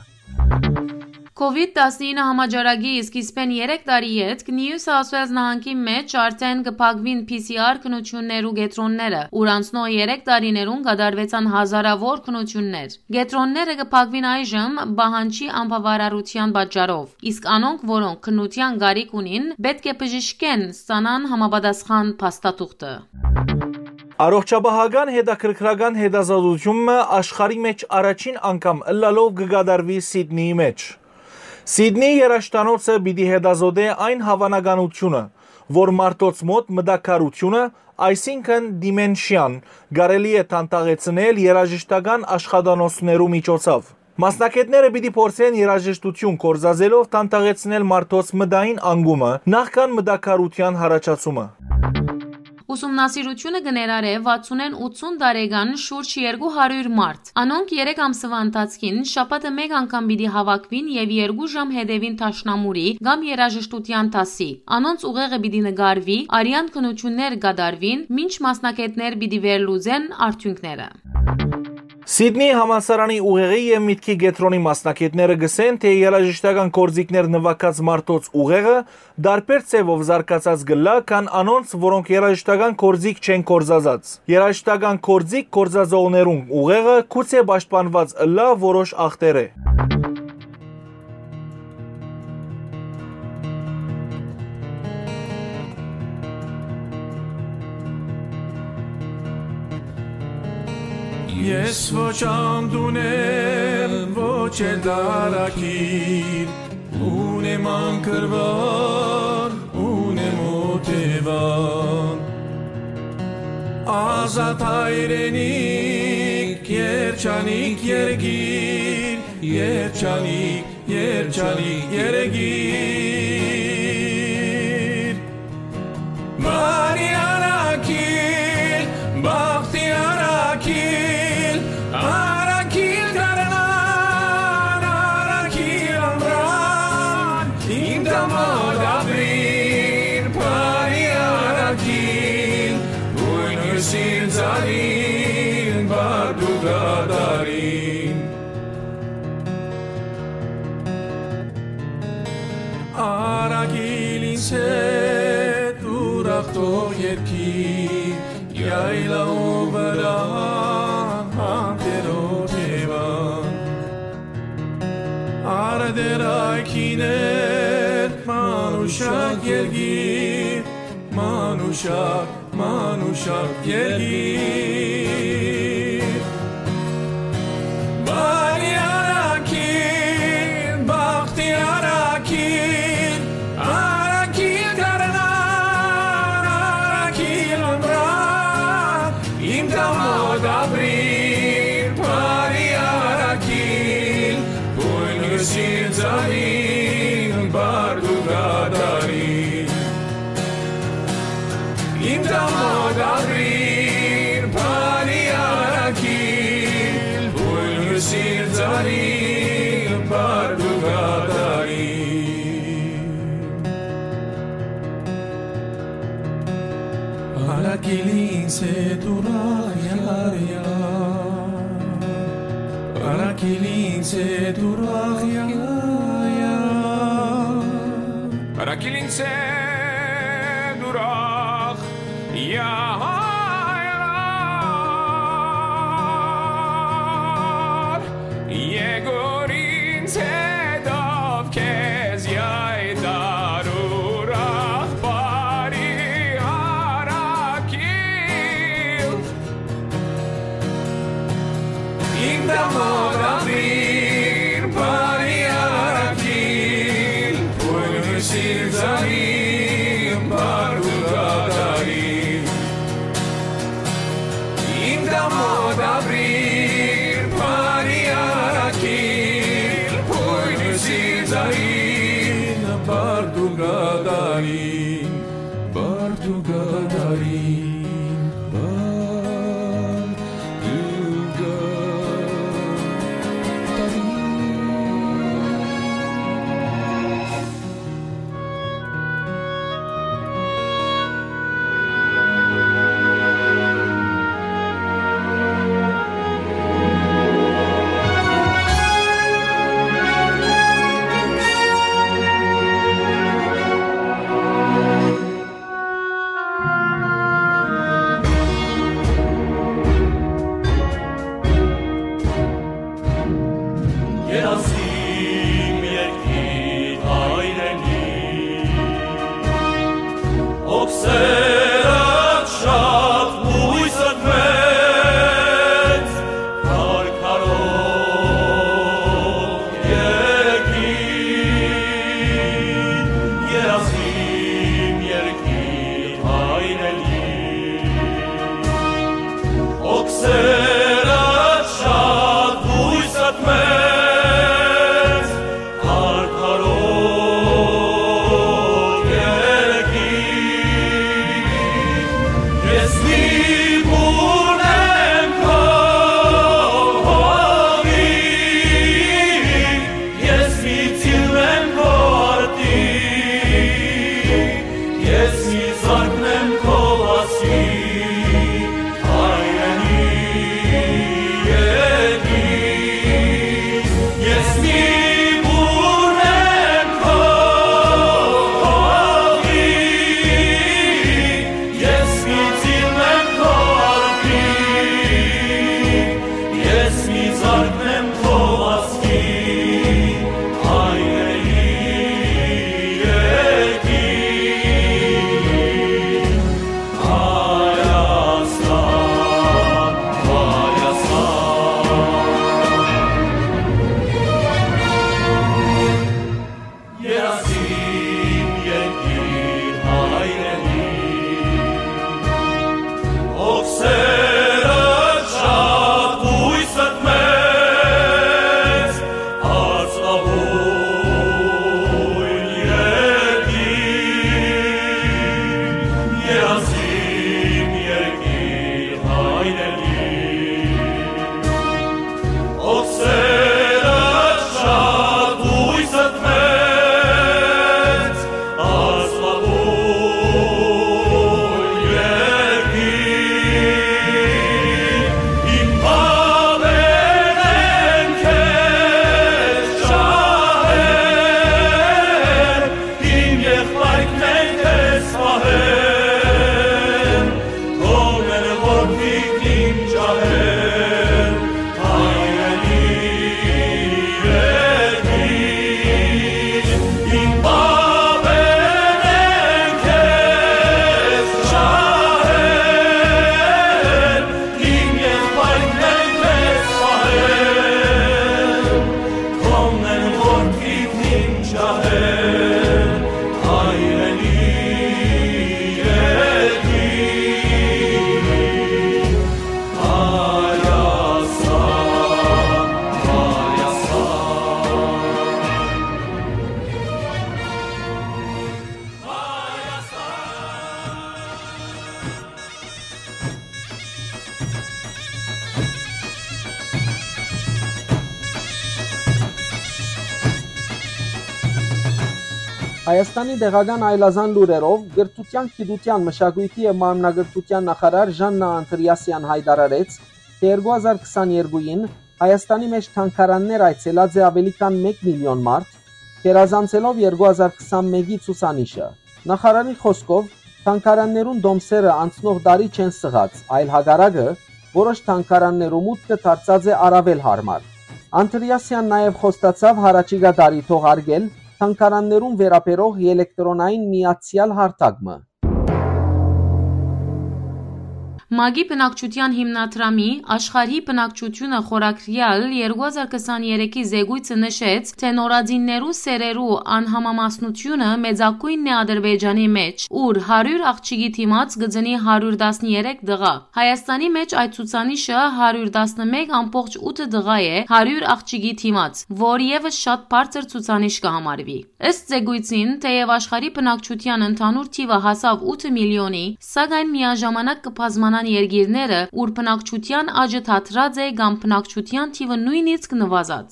Քովիդ տասնինը համաճարակի սկիզբէն երեք տարի ետք Նիու Սաութ Ուէլզ նահանգի մէջ արդէն կը փակուին P C R քննութիւններու կեդրոնները, ուր անցնող երեք տարիներուն կատարուեցան հազարաւոր քննութիւններ։ Կեդրոնները կը փակուին այժմ պահանջի անբաւարարութեան պատճառով, իսկ անոնք, որոնք քննութեան կարիք ունին, պէտք է բժշկէն ստանան համապատասխան փաստաթուղթը։ Առողջապահական հետաքրքրական հետազոտութիւն մը աշխարհի մէջ առաջին անգամ ըլլալով կը կատարուի Սիդնիի մէջ։ Սիդնիի երաժշտանոցը պիտի հետազոտէ այն հաւանականութիւնը, որ մարդոց մօտ մտաքարութիւնը, այսինքն դիմենշիան, կարելի է դանդաղեցնել երաժշտական աշխատանոցներու միջոցով։ Մասնագէտները պիտի փորձեն երաժշտութիւն կորզածելով դանդաղեցնել մարդոց մտային անկումը, նախքան մտաքարութեան յառաջացումը։ Ուսումնասիրութիւնը կը ներառէ վաթսունէն ութսուն տարեկան շուրջ երկու հարիւր մարդ։ Անոնք երեք ամսուայ ընթացքին շաբաթը մէկ անգամ պիտի հաւաքուին եւ երկու ժամ հետեւին դաշնամուրի կամ երաժշտութեան դասի։ Անոնց ուղեղը պիտի նկարուի, արեան քննութիւններ կատարուին, մինչ մասնագէտներ պիտի վերլուծեն արդիւնքները։ Սիդնի համալսարանի ուղեղի եւ միտքի կեդրոնի մասնագէտները կ'ըսեն, թէ երաժշտական գործիքներ նուագած մարդոց ուղեղը տարբեր ձեւով զարգացած կ'ըլլայ, քան անոնց, որոնք երաժշտական գործիք չեն կորզածած։ Երաժշտական գործիք կորզածողներուն ուղեղը գուցէ պաշտպանուած ըլլայ որոշ ախտերէ։ Ես ոչ անդունդեմ, ոչ էլ դարակիր, ունեմ անկրուան, ունեմ օթեւան։ Ազատ հայրենիք, երջանիկ երկիր, երջանիկ, երջանիկ երկիր։ Բարի առաքիլ, բախտի առաքիլ, առաքիլ գարնան, առաքիլ ամրան, իմ տամոտ ապրիր, բարի առաքիլ, ույն հուսին ծառին, բարդու կատարին։ Առաքիլ ինձ հետ ուրախ թող երկիր, յայլաու վրայ անտերոտ Եվան։ Արդեր այգիներ, մանուշակ երկիր, մանուշակ, մանուշակ երկիր։ Բարի առաքիլ, բախտի առաքիլ, առաքիլ գարնան, առաքիլ ամրան, իմ տամոտ ապրիր, բարի առաքիլ, ույն հուսին ծառին, բարդու կատարին։ Իմ տամոտ ապրիր, բարի առաքիլ, ույն հուսին ծառին, բարդու կատարին։ Առաքիլ ինձ հետ ուրախ յարյար, առաքիլ ինձ հետ ուրախ յարյար։ Առաքիլ ինձ հետ ուրախ յարյար, եկուր ինձ հետով քեզ յայտար ուրախ բարի առաքիլ։ Իմ տամոտ ապրիր, բարի առաքիլ, ույն հուսին ծառին, բարդու կատարին։ Բարդուկատարին, բարդուկատարին։ Երազիմ երկիր հայրենի, օքսերդ շատ, բոյսդ մեծ, քարքարոտ երկիր, երազիմ երկիր հայրենի, օքսերդ շատ, բոյսդ մեծ, Արդարոյ երկիր, ես մի բուռն եմ քո հողի, ես մի ծիլ եմ քո արտի, ես մի զարկն եմ քո վազքի, հայրենի երկիր, ես մի բուռն եմ քո հողի, ես մի ծիլ եմ քո արտի, ես մի զարկն եմ քո վազքի, հայրենի երկիր։ Հայաստան, Հայաստան։ Երազիմ երկիր հայրենի, օքսերդ շատ, բոյսդ մեծ, Արծաւոյն երկիր, երազիմ երկիր հայրենի, օքսերդ շատ, բոյսդ մեծ, Արծաւոյ երկիր, իմ բաբերն են քեզ ջահել, իմ եղբայրքն են քեզ պահել, թողնել որդիքն իմ ջահել, հայրենի երկիր, իմ բաբերն են քեզ ջահել, իմ եղբայրքն են քեզ պահել, թողնել որդիքն իմ ջահել, հայրենի երկիր, Հայաստան, Հայաստան, Հայաստան։ Հայաստանի տեղական այլազան լուրերով, կրթութեան, գիտութեան, մշակոյթի եւ մարմնակրթութեան նախարար Ժաննա Անտրիասեան յայտարարեց, թէ երկու հազար քսաներկուին Հայաստանի մէջ թանգարաններ այցելած է աւելի քան մէկ միլիոն մարդ, գերազանցելով երկու հազար քսանմէկի ցուցանիշը։ Նախարարի խօսքով, թանգարաններուն տոմսերը անցնող տարի չեն սղած, այլ հակառակը, որոշ թանգարաններու մուտքը դարձած է առաւել յարմար։ Անտրիասեան նաեւ խոստացաւ յառաջիկայ տարի թողարկել թանգարաններուն վերաբերող ելեկտրոնային միացեալ հարթակ մը։ ՄԱԿ-ի բնակչութեան հիմնադրամի աշխարհի բնակչութիւնը խորագրեալ երկու հազար քսաներեքի զեկոյցը նշեց, թէ նորածիններու սեռերու անհամամասնութիւնը մեծագոյնն է Ադրբեջանի մէջ, ուր հարիւր աղջիկի դիմաց կը ծնի հարիւր տասներեք տղայ։ Հայաստանի մէջ այդ ցուցանիշը հարիւր տասնմէկ ամբողջ ութ տղայ է հարիւր աղջիկի դիմաց, որ եւս շատ բարձր ցուցանիշ կը համարուի։ Ըստ զեկոյցին, թէեւ աշխարհի բնակչութեան ընդհանուր թիւը հասաւ ութ միլիոնի, սակայն միաժամանակ կը բազմանան երկիրները, ուր բնակչութեան աճը դադրած է կամ բնակչութեան թիւը նոյնիսկ նուազած։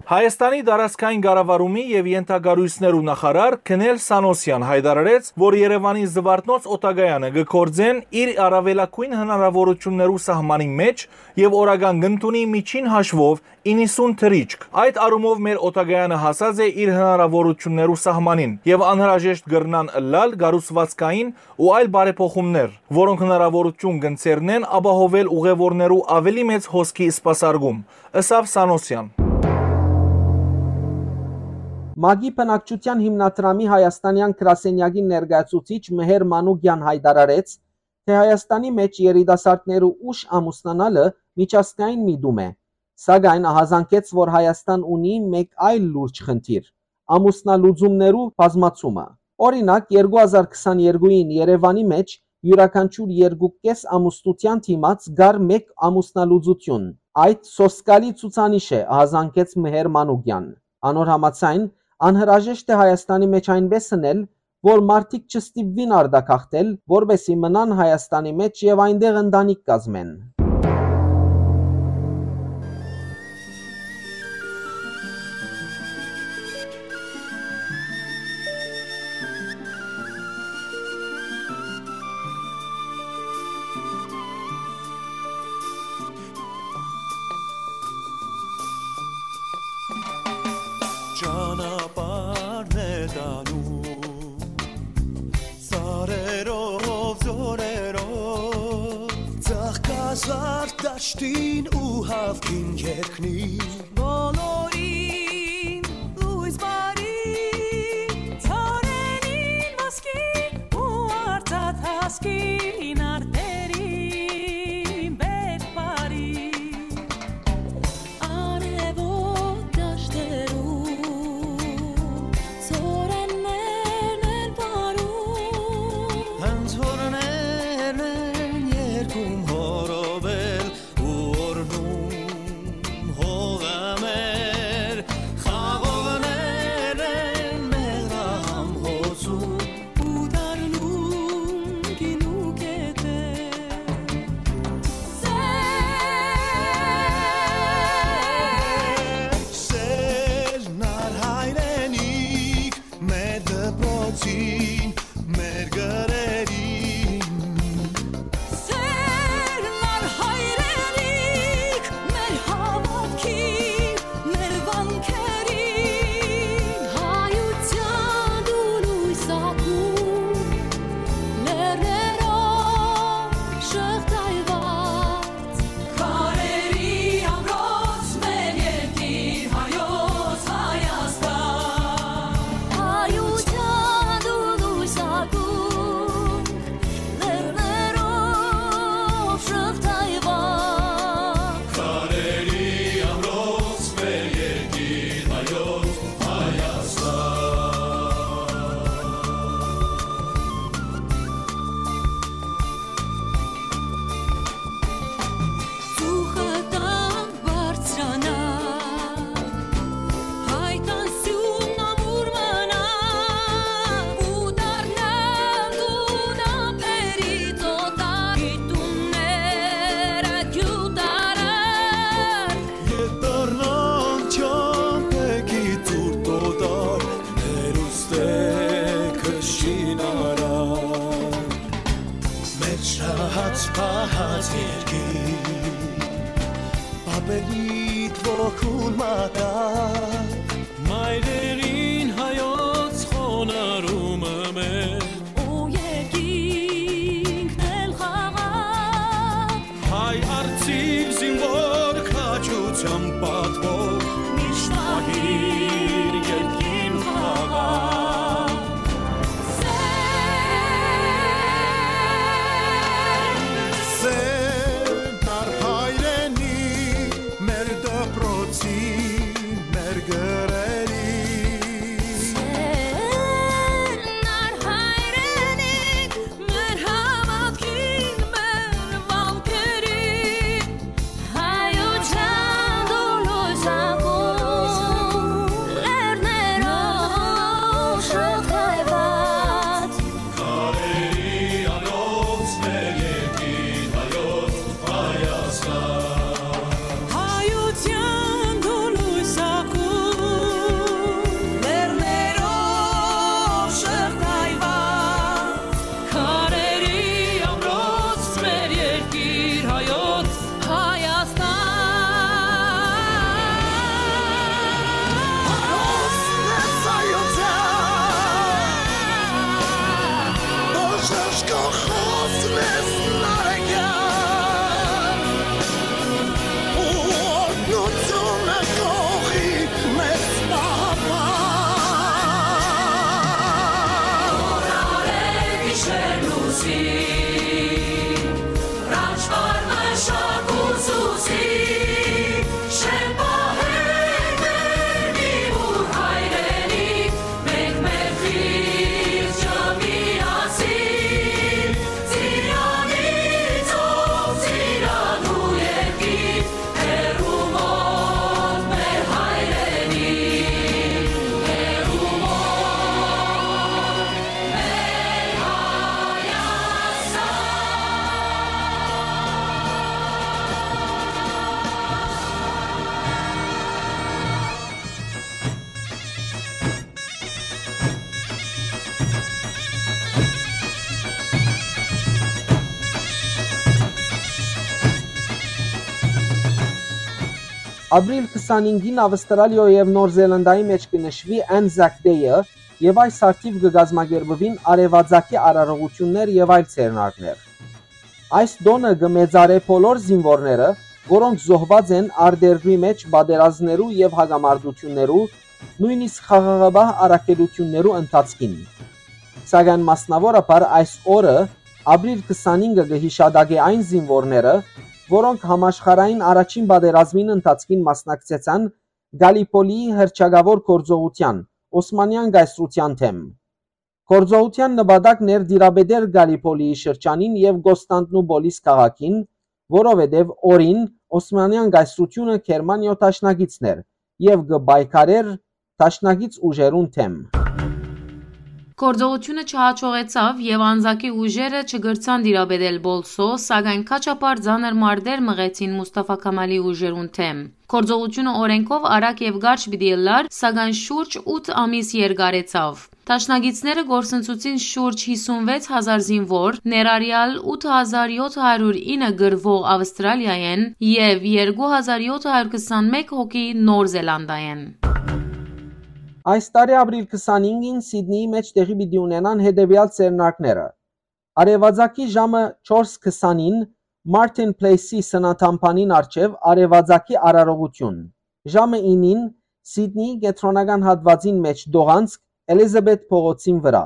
Հայաստանի տարածքային կառավարումի եւ ենթակառոյցներու նախարար Քնել Սանոսեան յայտարարեց, որ Երեւանի Զուարթնոց օդակայանը կը գործեն իր առաւելագոյն հնարաւորութիւններու սահմանին մէջ եւ օրական կ'ընդունի միջին հաշուով իննսուն թռիչք։ Այդ առումով մեր օդակայանը հասած է իր հնարաւորութիւններու սահմանին եւ անհրաժեշտ կրնան ըլլալ կառուցվածքային ու այլ բարեփոխումներ, որոնք հնարաւորութիւն կ'ընձեռնեն ապահովել ուղեւորներու աւելի մեծ հոսքի սպասարկում, ըսաւ Սանոսեան։ ՄԱԿ-ի բնակչութեան հիմնադրամի հայաստանեան գրասենյակի ներկայացուցիչ Մհեր Մանուկեան յայտարարեց, թէ Հայաստանի մէջ երիտասարդներու ուշ ամուսնանալը միջազգային միտում է, սակայն ահազանգեց, որ Հայաստան ունի մէկ այլ լուրջ խնդիր՝ ամուսնալուծումներու բազմացումը։ Օրինակ, երկու հազար քսաներկուին Երեւանի մէջ իւրաքանչիւր երկու կէս ամուսնութեան դիմաց կար մէկ ամուսնալուծութիւն։ Այդ սոսկալի ցուցանիշ է, ահազանգեց Մհեր Մանուկեան։ Անոր համաձայն, անհրաժեշտ է Հայաստանի մէջ այնպէս ընել, որ մարդիկ չստիպուին արտագաղթել, որպէսզի մնան Հայաստանի մէջ եւ այնտեղ ընտանիք կազմեն։ Ճանապարհն է տանում սարերով, ձորերով, ծաղկազարդ դաշտին ու հաւքին երկնին։ Բոլորին լոյս բարի, ծառերին ոսկի ու արծաթ հասկին արտերին բերք բարի։ Արեւոտ դաշտերու, ծորեններն են պարում։ Անցորներն են երգում հորովել ու օրհնում հողը մեր, խաղողներն են մեղրահամ հոսում։ Ու դառնում գինու կետեր։ Սեր, սեր նար հայրենիք, մեր դպրոցին, մեր գրերին։ Սեր նար հայրենիք, մեր հաւատքին, մեր վանքերին, հայութեան դու լոյս ակում, լեռներով շղթայված, քարերի ամրոց մեր երկիր հայոց Հայաստան։ Հայութեան դու լոյս ակում, լեռներով շղթայված։ Քարերի ամրոց մեր երկիր հայոց Հայաստան։ Ծուխը տանք բարձրանանք, հայ տան սիւնն ամուր մնանք, ու դառնանք դուն ափերից օտար, գիտունները գյուտարար։ Ետ դառնանք չամպեքի ցուրտ օտար, հերուստե քշին արար։ Մեր շահած պահած երկիր, պապերիդ ոգուն մատաղ։ Մայրերին հայոց խոնարհումը մեր, ու երկինքն էլ խաղաղ։ Հայ արծիվ զինվոր քաջութեան պատվով, միշտ պահիր երկրին խաղաղ։ Ապրիլ քսանհինգին Ավստրալիոյ եւ Նոր Զելանդիայի մէջ կը նշուի Anzac Day-ը, եւ այս արդիւ կը կազմակերպուին արեւածագի արարողութիւններ եւ այլ ձեռնարկներ։ Այս տօնը կը մեծարէ բոլոր զինուորները, որոնք զոհուած են արտերկրի մէջ պատերազմներու եւ հակամարտութիւններու, նոյնիսկ խաղաղապահ առաքելութիւններու ընթացքին։ Սակայն մասնաւորաբար այս օրը, ապրիլ քսանհինգը, կը յիշատակէ այն զինուորները, որոնք համաշխարհային առաջին պատերազմին ընթացքին մասնակցեցան Գալիպոլիի հռչակաւոր գործողութեան, Օսմանեան կայսրութեան դէմ։ Գործողութեան նպատակն էր տիրապետել Գալիպոլիի շրջանին եւ Կոստանդնուպոլիս քաղաքին, որովհետեւ օրին Օսմանեան կայսրութիւնը Գերմանիոյ դաշնակիցն էր եւ կը պայքարէր դաշնակից ուժերուն դէմ։ Գործողութիւնը չհաջողեցաւ եւ Անզակի ուժերը չկրցան տիրապետել Պոլսոյ, սակայն քաչապար ծանր մարտեր մղեցին Մուսթաֆա Քամալի ուժերուն դէմ։ Գործողութիւնը օրէնքով արագ եւ կարճ պիտի ըլլար, սակայն շուրջ ութ ամիս երկարեցաւ։ Դաշնակիցները կորսնցուցին շուրջ հիսուն վեց հազար զինուոր, ներառեալ ութ հազար յոթ հարիւր ինը կռուող Ավստրալիայէն եւ երկու հազար յոթ հարիւր քսանմէկ հոգի Նոր Զելանդայէն։ Այս տարի ապրիլ քսանհինգին Սիդնիի մէջ տեղի պիտի ունենան հետեւեալ ձեռնարկները։ Արեւածագի ժամը չորս քսանին Մարտին Պլէյսի սննդամբանին առջեւ արեւածագի արարողութիւն։ Ժամը ինին Սիդնիի կեդրոնական հատուածին մէջ տողանցք Էլիզաբեթ փողոցին վրայ։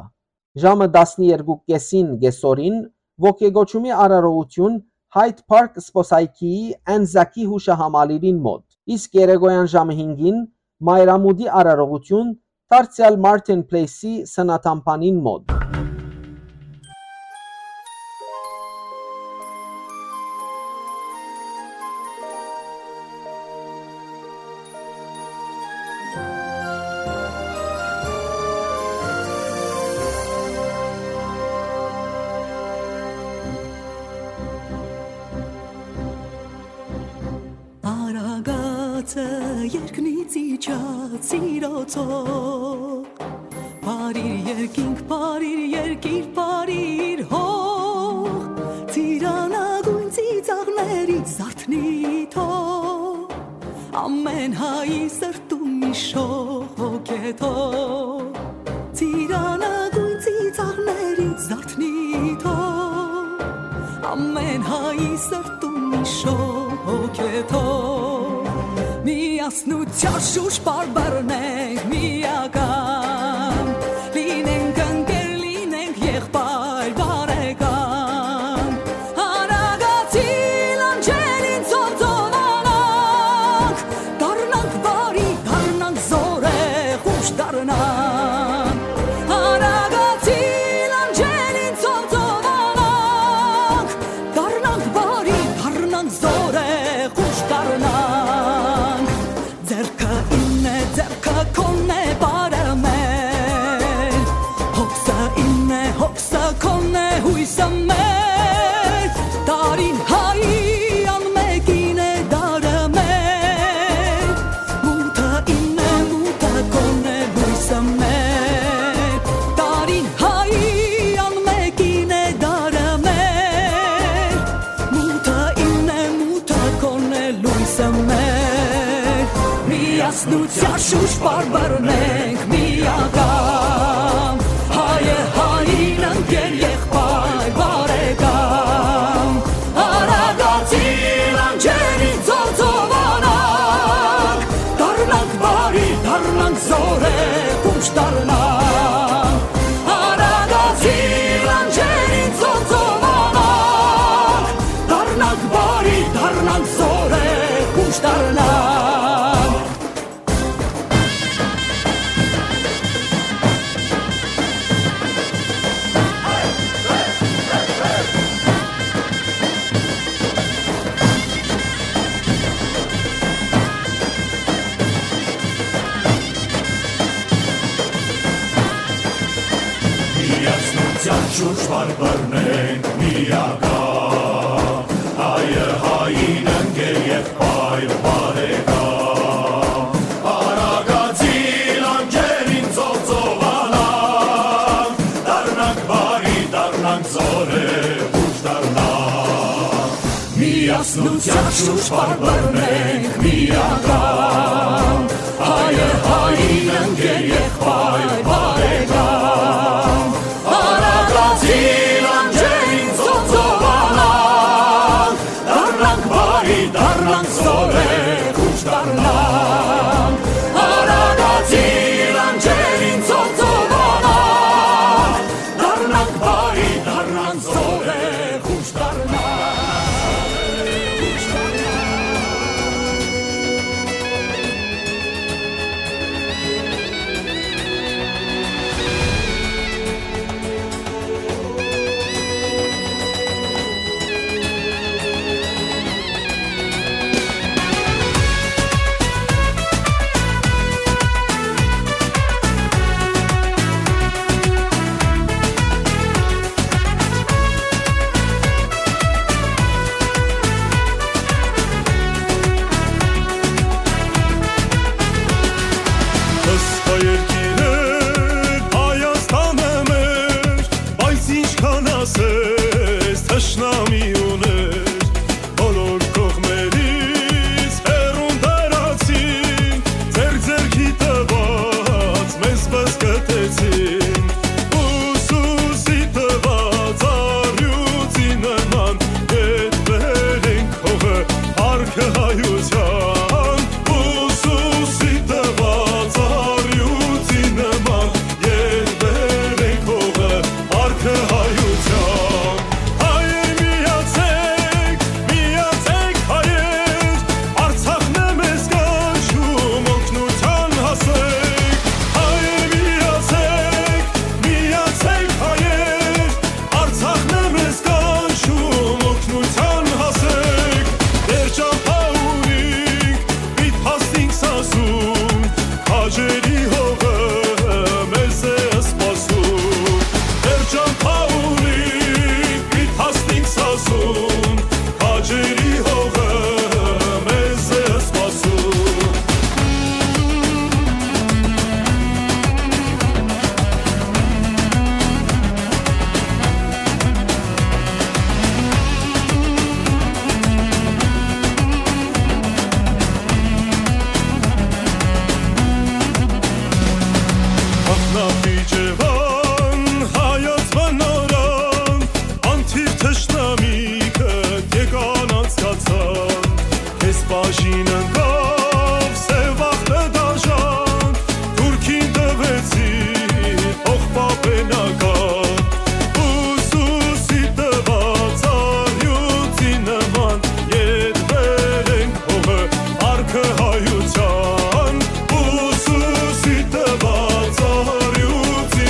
Ժամը տասներկու կէսին կէսօրին ոգեկոչումի արարողութիւն Hyde Park զբօսայգիի Անզակի յուշահամալիրին մօտ, իսկ երեկոյան ժամը հինգին մայրամուտի արարողութիւն դարձեալ Մարտին Պլէյսի սննդամբանին մօտ։ Արագածը երկնից իջած սիրոցով, բարիր երկինք, բարիր երկիր, բարիր հող, ծիրանագույն ծիծաղներիդ զարթնի թող, ամեն հայի սրտում իշող հոգեթող, ծիրանագույն ծիծաղներիդ զարթնի թող, ամեն հայի սրտում իշող հոգեթող, միասնության շուրջ պարբերնենք միական, լինենք ընկեր, լինենք եղբայր բարեկամ, արագացի լանջերին ծովծովանանք, դառնանք բարի, դառնանք զորեղ, ուշ դառնանք, արագացի լանջերին ծովծովանանք, դառնանք բարի, դառնանք զորեղ, ուշ դառնանք, ձեռքը իմն է, ձեռքը քոնն է, բարը մեր, հոգսը իմն է, հոգսը քոնն է, յոյսը մեր, տարին հայի անմեկին է, դարը մեր, մութը իմն է, մութը քոնն է, լոյսը մեր, տարին հայի անմեկին է, դարը մեր, մութը իմն է, մութը քոնն է, լոյսը մեր, միասնության շուրջ պարբերնենք միական, հայը հային ընկեր, եղբայր բարեկամ, արագացի լանջերին ծովծովանանք, դառնանք բարի, դառնանք զորեղ, ուշ դառնանք, արագացի լանջերին ծովծովանանք, դառնանք բարի, դառնանք զորեղ, ուշ դառնանք։ Միասնության շուրջ պարբերնենք միական, հայը հային ընկեր, եղբայր բարեկամ, արագացի լանջերին ծովծովանանք, դառնանք բարի, դառնանք զորեղ, ուշ դառնանք, միասնության Հասնութեան շուրջ պարբերենք միական, հայը հային ընկեր, եղբայր, բարեկամ։ Արագածին անջերին ծովանանք, դառնանք բարի, դառնանք զորեղ, ուշ դառնանք։ Արագածին անջերին ծովանանք, դառնանք բարի, դառնանք զորեղ, ուշ դառնանք։ Սխա երկիրը Հայաստանը մեր, բայց ինչքան ասես թշնամի ուներ, բոլոր կողմերիս հեռուն տարածին, ձեր ձեռքի տված մեզ բզկտեցին, ուսուսի տված առյուծի նման, ետ բերենք հողը, արկը հայության, ուսուսի տված առյուծի նման, ետ բերենք հողը, արկը հայության։ Հայեր միացեք, միացեք հայեր, Արցախն է մեզ կանչում, օգնության հասեք։ Հայեր միացեք, միացեք հայեր, Արցախն է մեզ կանչում, օգնության հասեք։ Դեռ ճամփա ունինք, պիտ հասնինք Սասուն, քաջերի հողը մեզ է սպասում։ Դեռ ճամփա ունինք, պիտ հասնինք Սասուն, քաջերի հողը մեզ է սպասում։ Ախնապի Ջեվան, հայոց բնորան, անթիվ թշնամիքը եկան անցկացան, քեզ բաժին ընկավ սեւ ախտը դաժան, թուրքին տվեցի փոխպապենական, ուսուսի տված առյուծի նման, ետ բերենք հողը, արկը հայության, ուսուսի տված առյուծի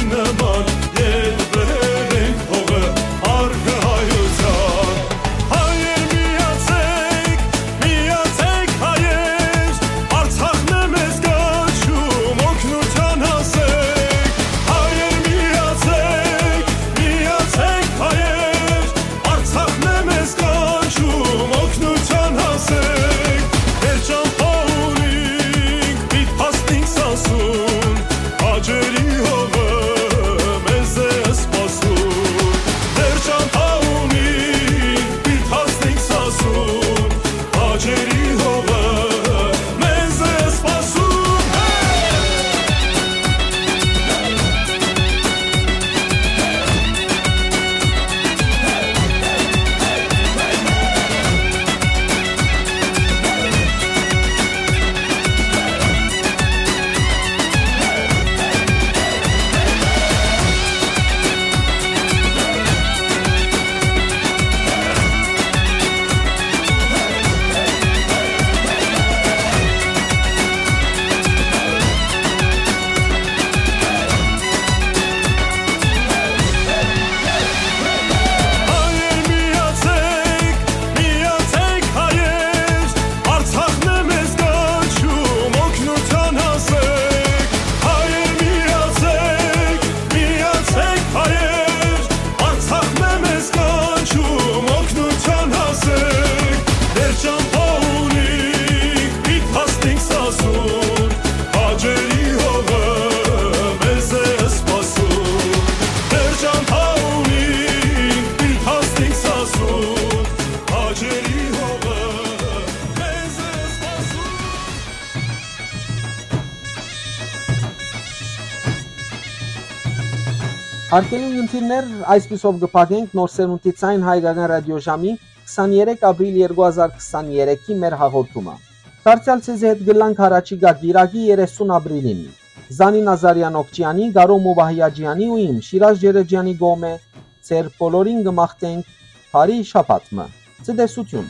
Հարգելի ունգընտիրներ, այսպիսով կը փակենք Նոր Սերունդի Ձայն հայկական ռադիոժամի քսաներեք ապրիլ երկու հազար քսաներեքի մեր հաղորդումը։ Դարձեալ ձեզի հետ կ'ըլլանք յառաջիկայ կիրակի երեսուն ապրիլին։ Զանի Նազարեան Օքճեանի, Կարո Մուբահիաջեանի ու իմ Շիրազ Ջերեջեանի կողմէ ձեր բոլորին կը մաղթենք բարի շաբաթ մը։ Ցտեսութիւն։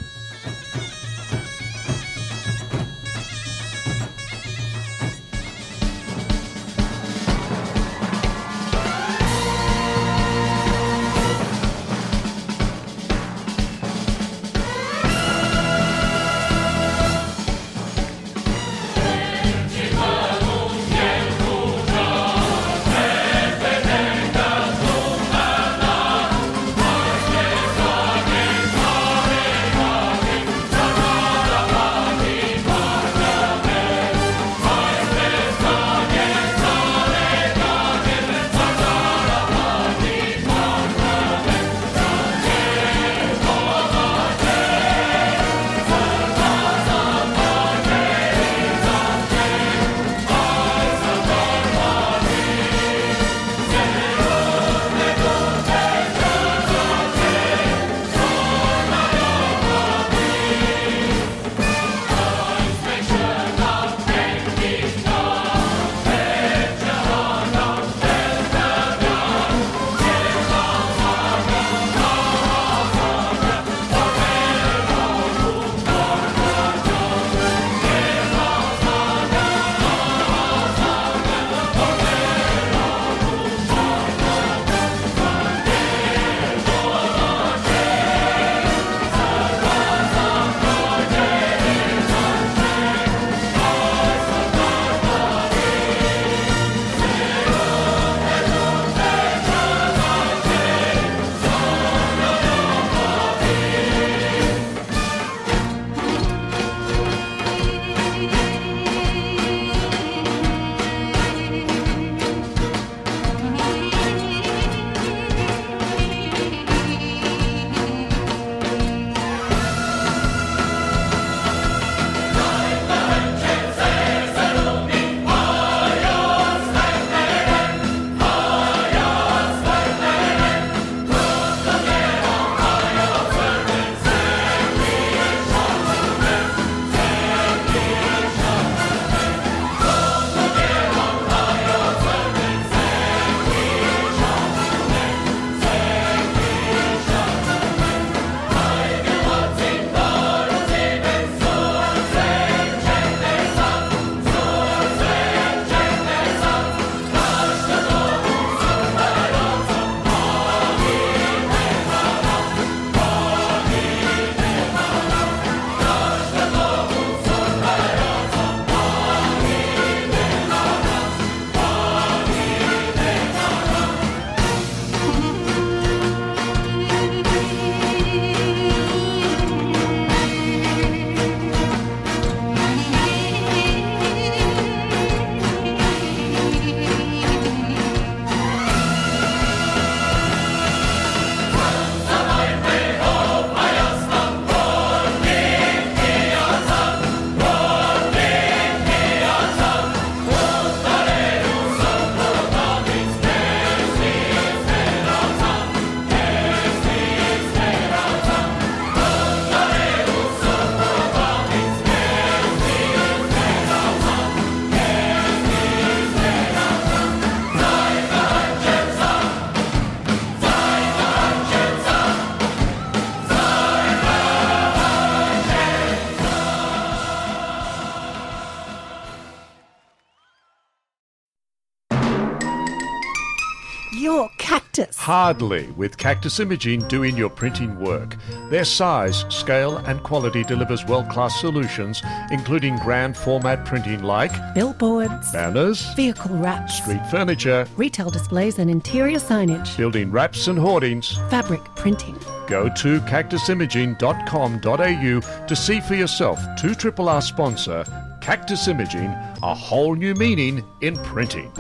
Your Cactus. Hardly, with Cactus Imaging doing your printing work. Their size, scale, and quality delivers world-class solutions, including grand format printing like billboards, banners, vehicle wraps, street furniture, retail displays and interior signage, building wraps and hoardings, fabric printing. Go to cactus imaging dot com dot a u to see for yourself. Two triple R sponsor, Cactus Imaging, a whole new meaning in printing.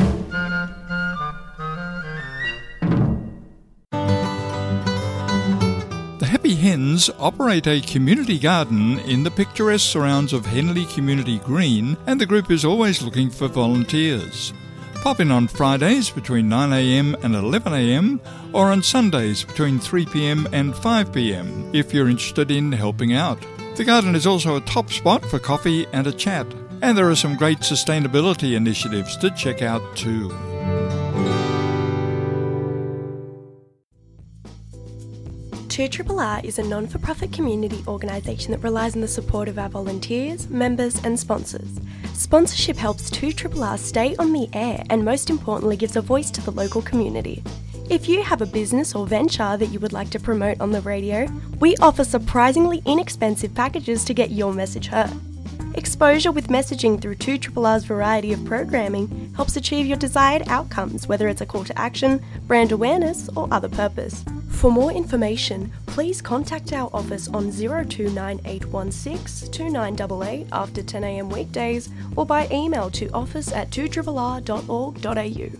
The Happy Hens operate a community garden in the picturesque surrounds of Henley Community Green, and the group is always looking for volunteers. Pop in on Fridays between nine a.m. and eleven a.m., or on Sundays between three p.m. and five p.m. if you're interested in helping out. The garden is also a top spot for coffee and a chat, and there are some great sustainability initiatives to check out too. Two R R R is a non for profit community organisation that relies on the support of our volunteers, members, and sponsors. Sponsorship helps Two R R R stay on the air and, most importantly, gives a voice to the local community. If you have a business or venture that you would like to promote on the radio, we offer surprisingly inexpensive packages to get your message heard. Exposure with messaging through Two R R R's variety of programming helps achieve your desired outcomes, whether it's a call to action, brand awareness, or other purpose. For more information, please contact our office on zero two nine eight one six two nine eight eight after ten a.m. weekdays or by email to office at two R R R dot org dot a u.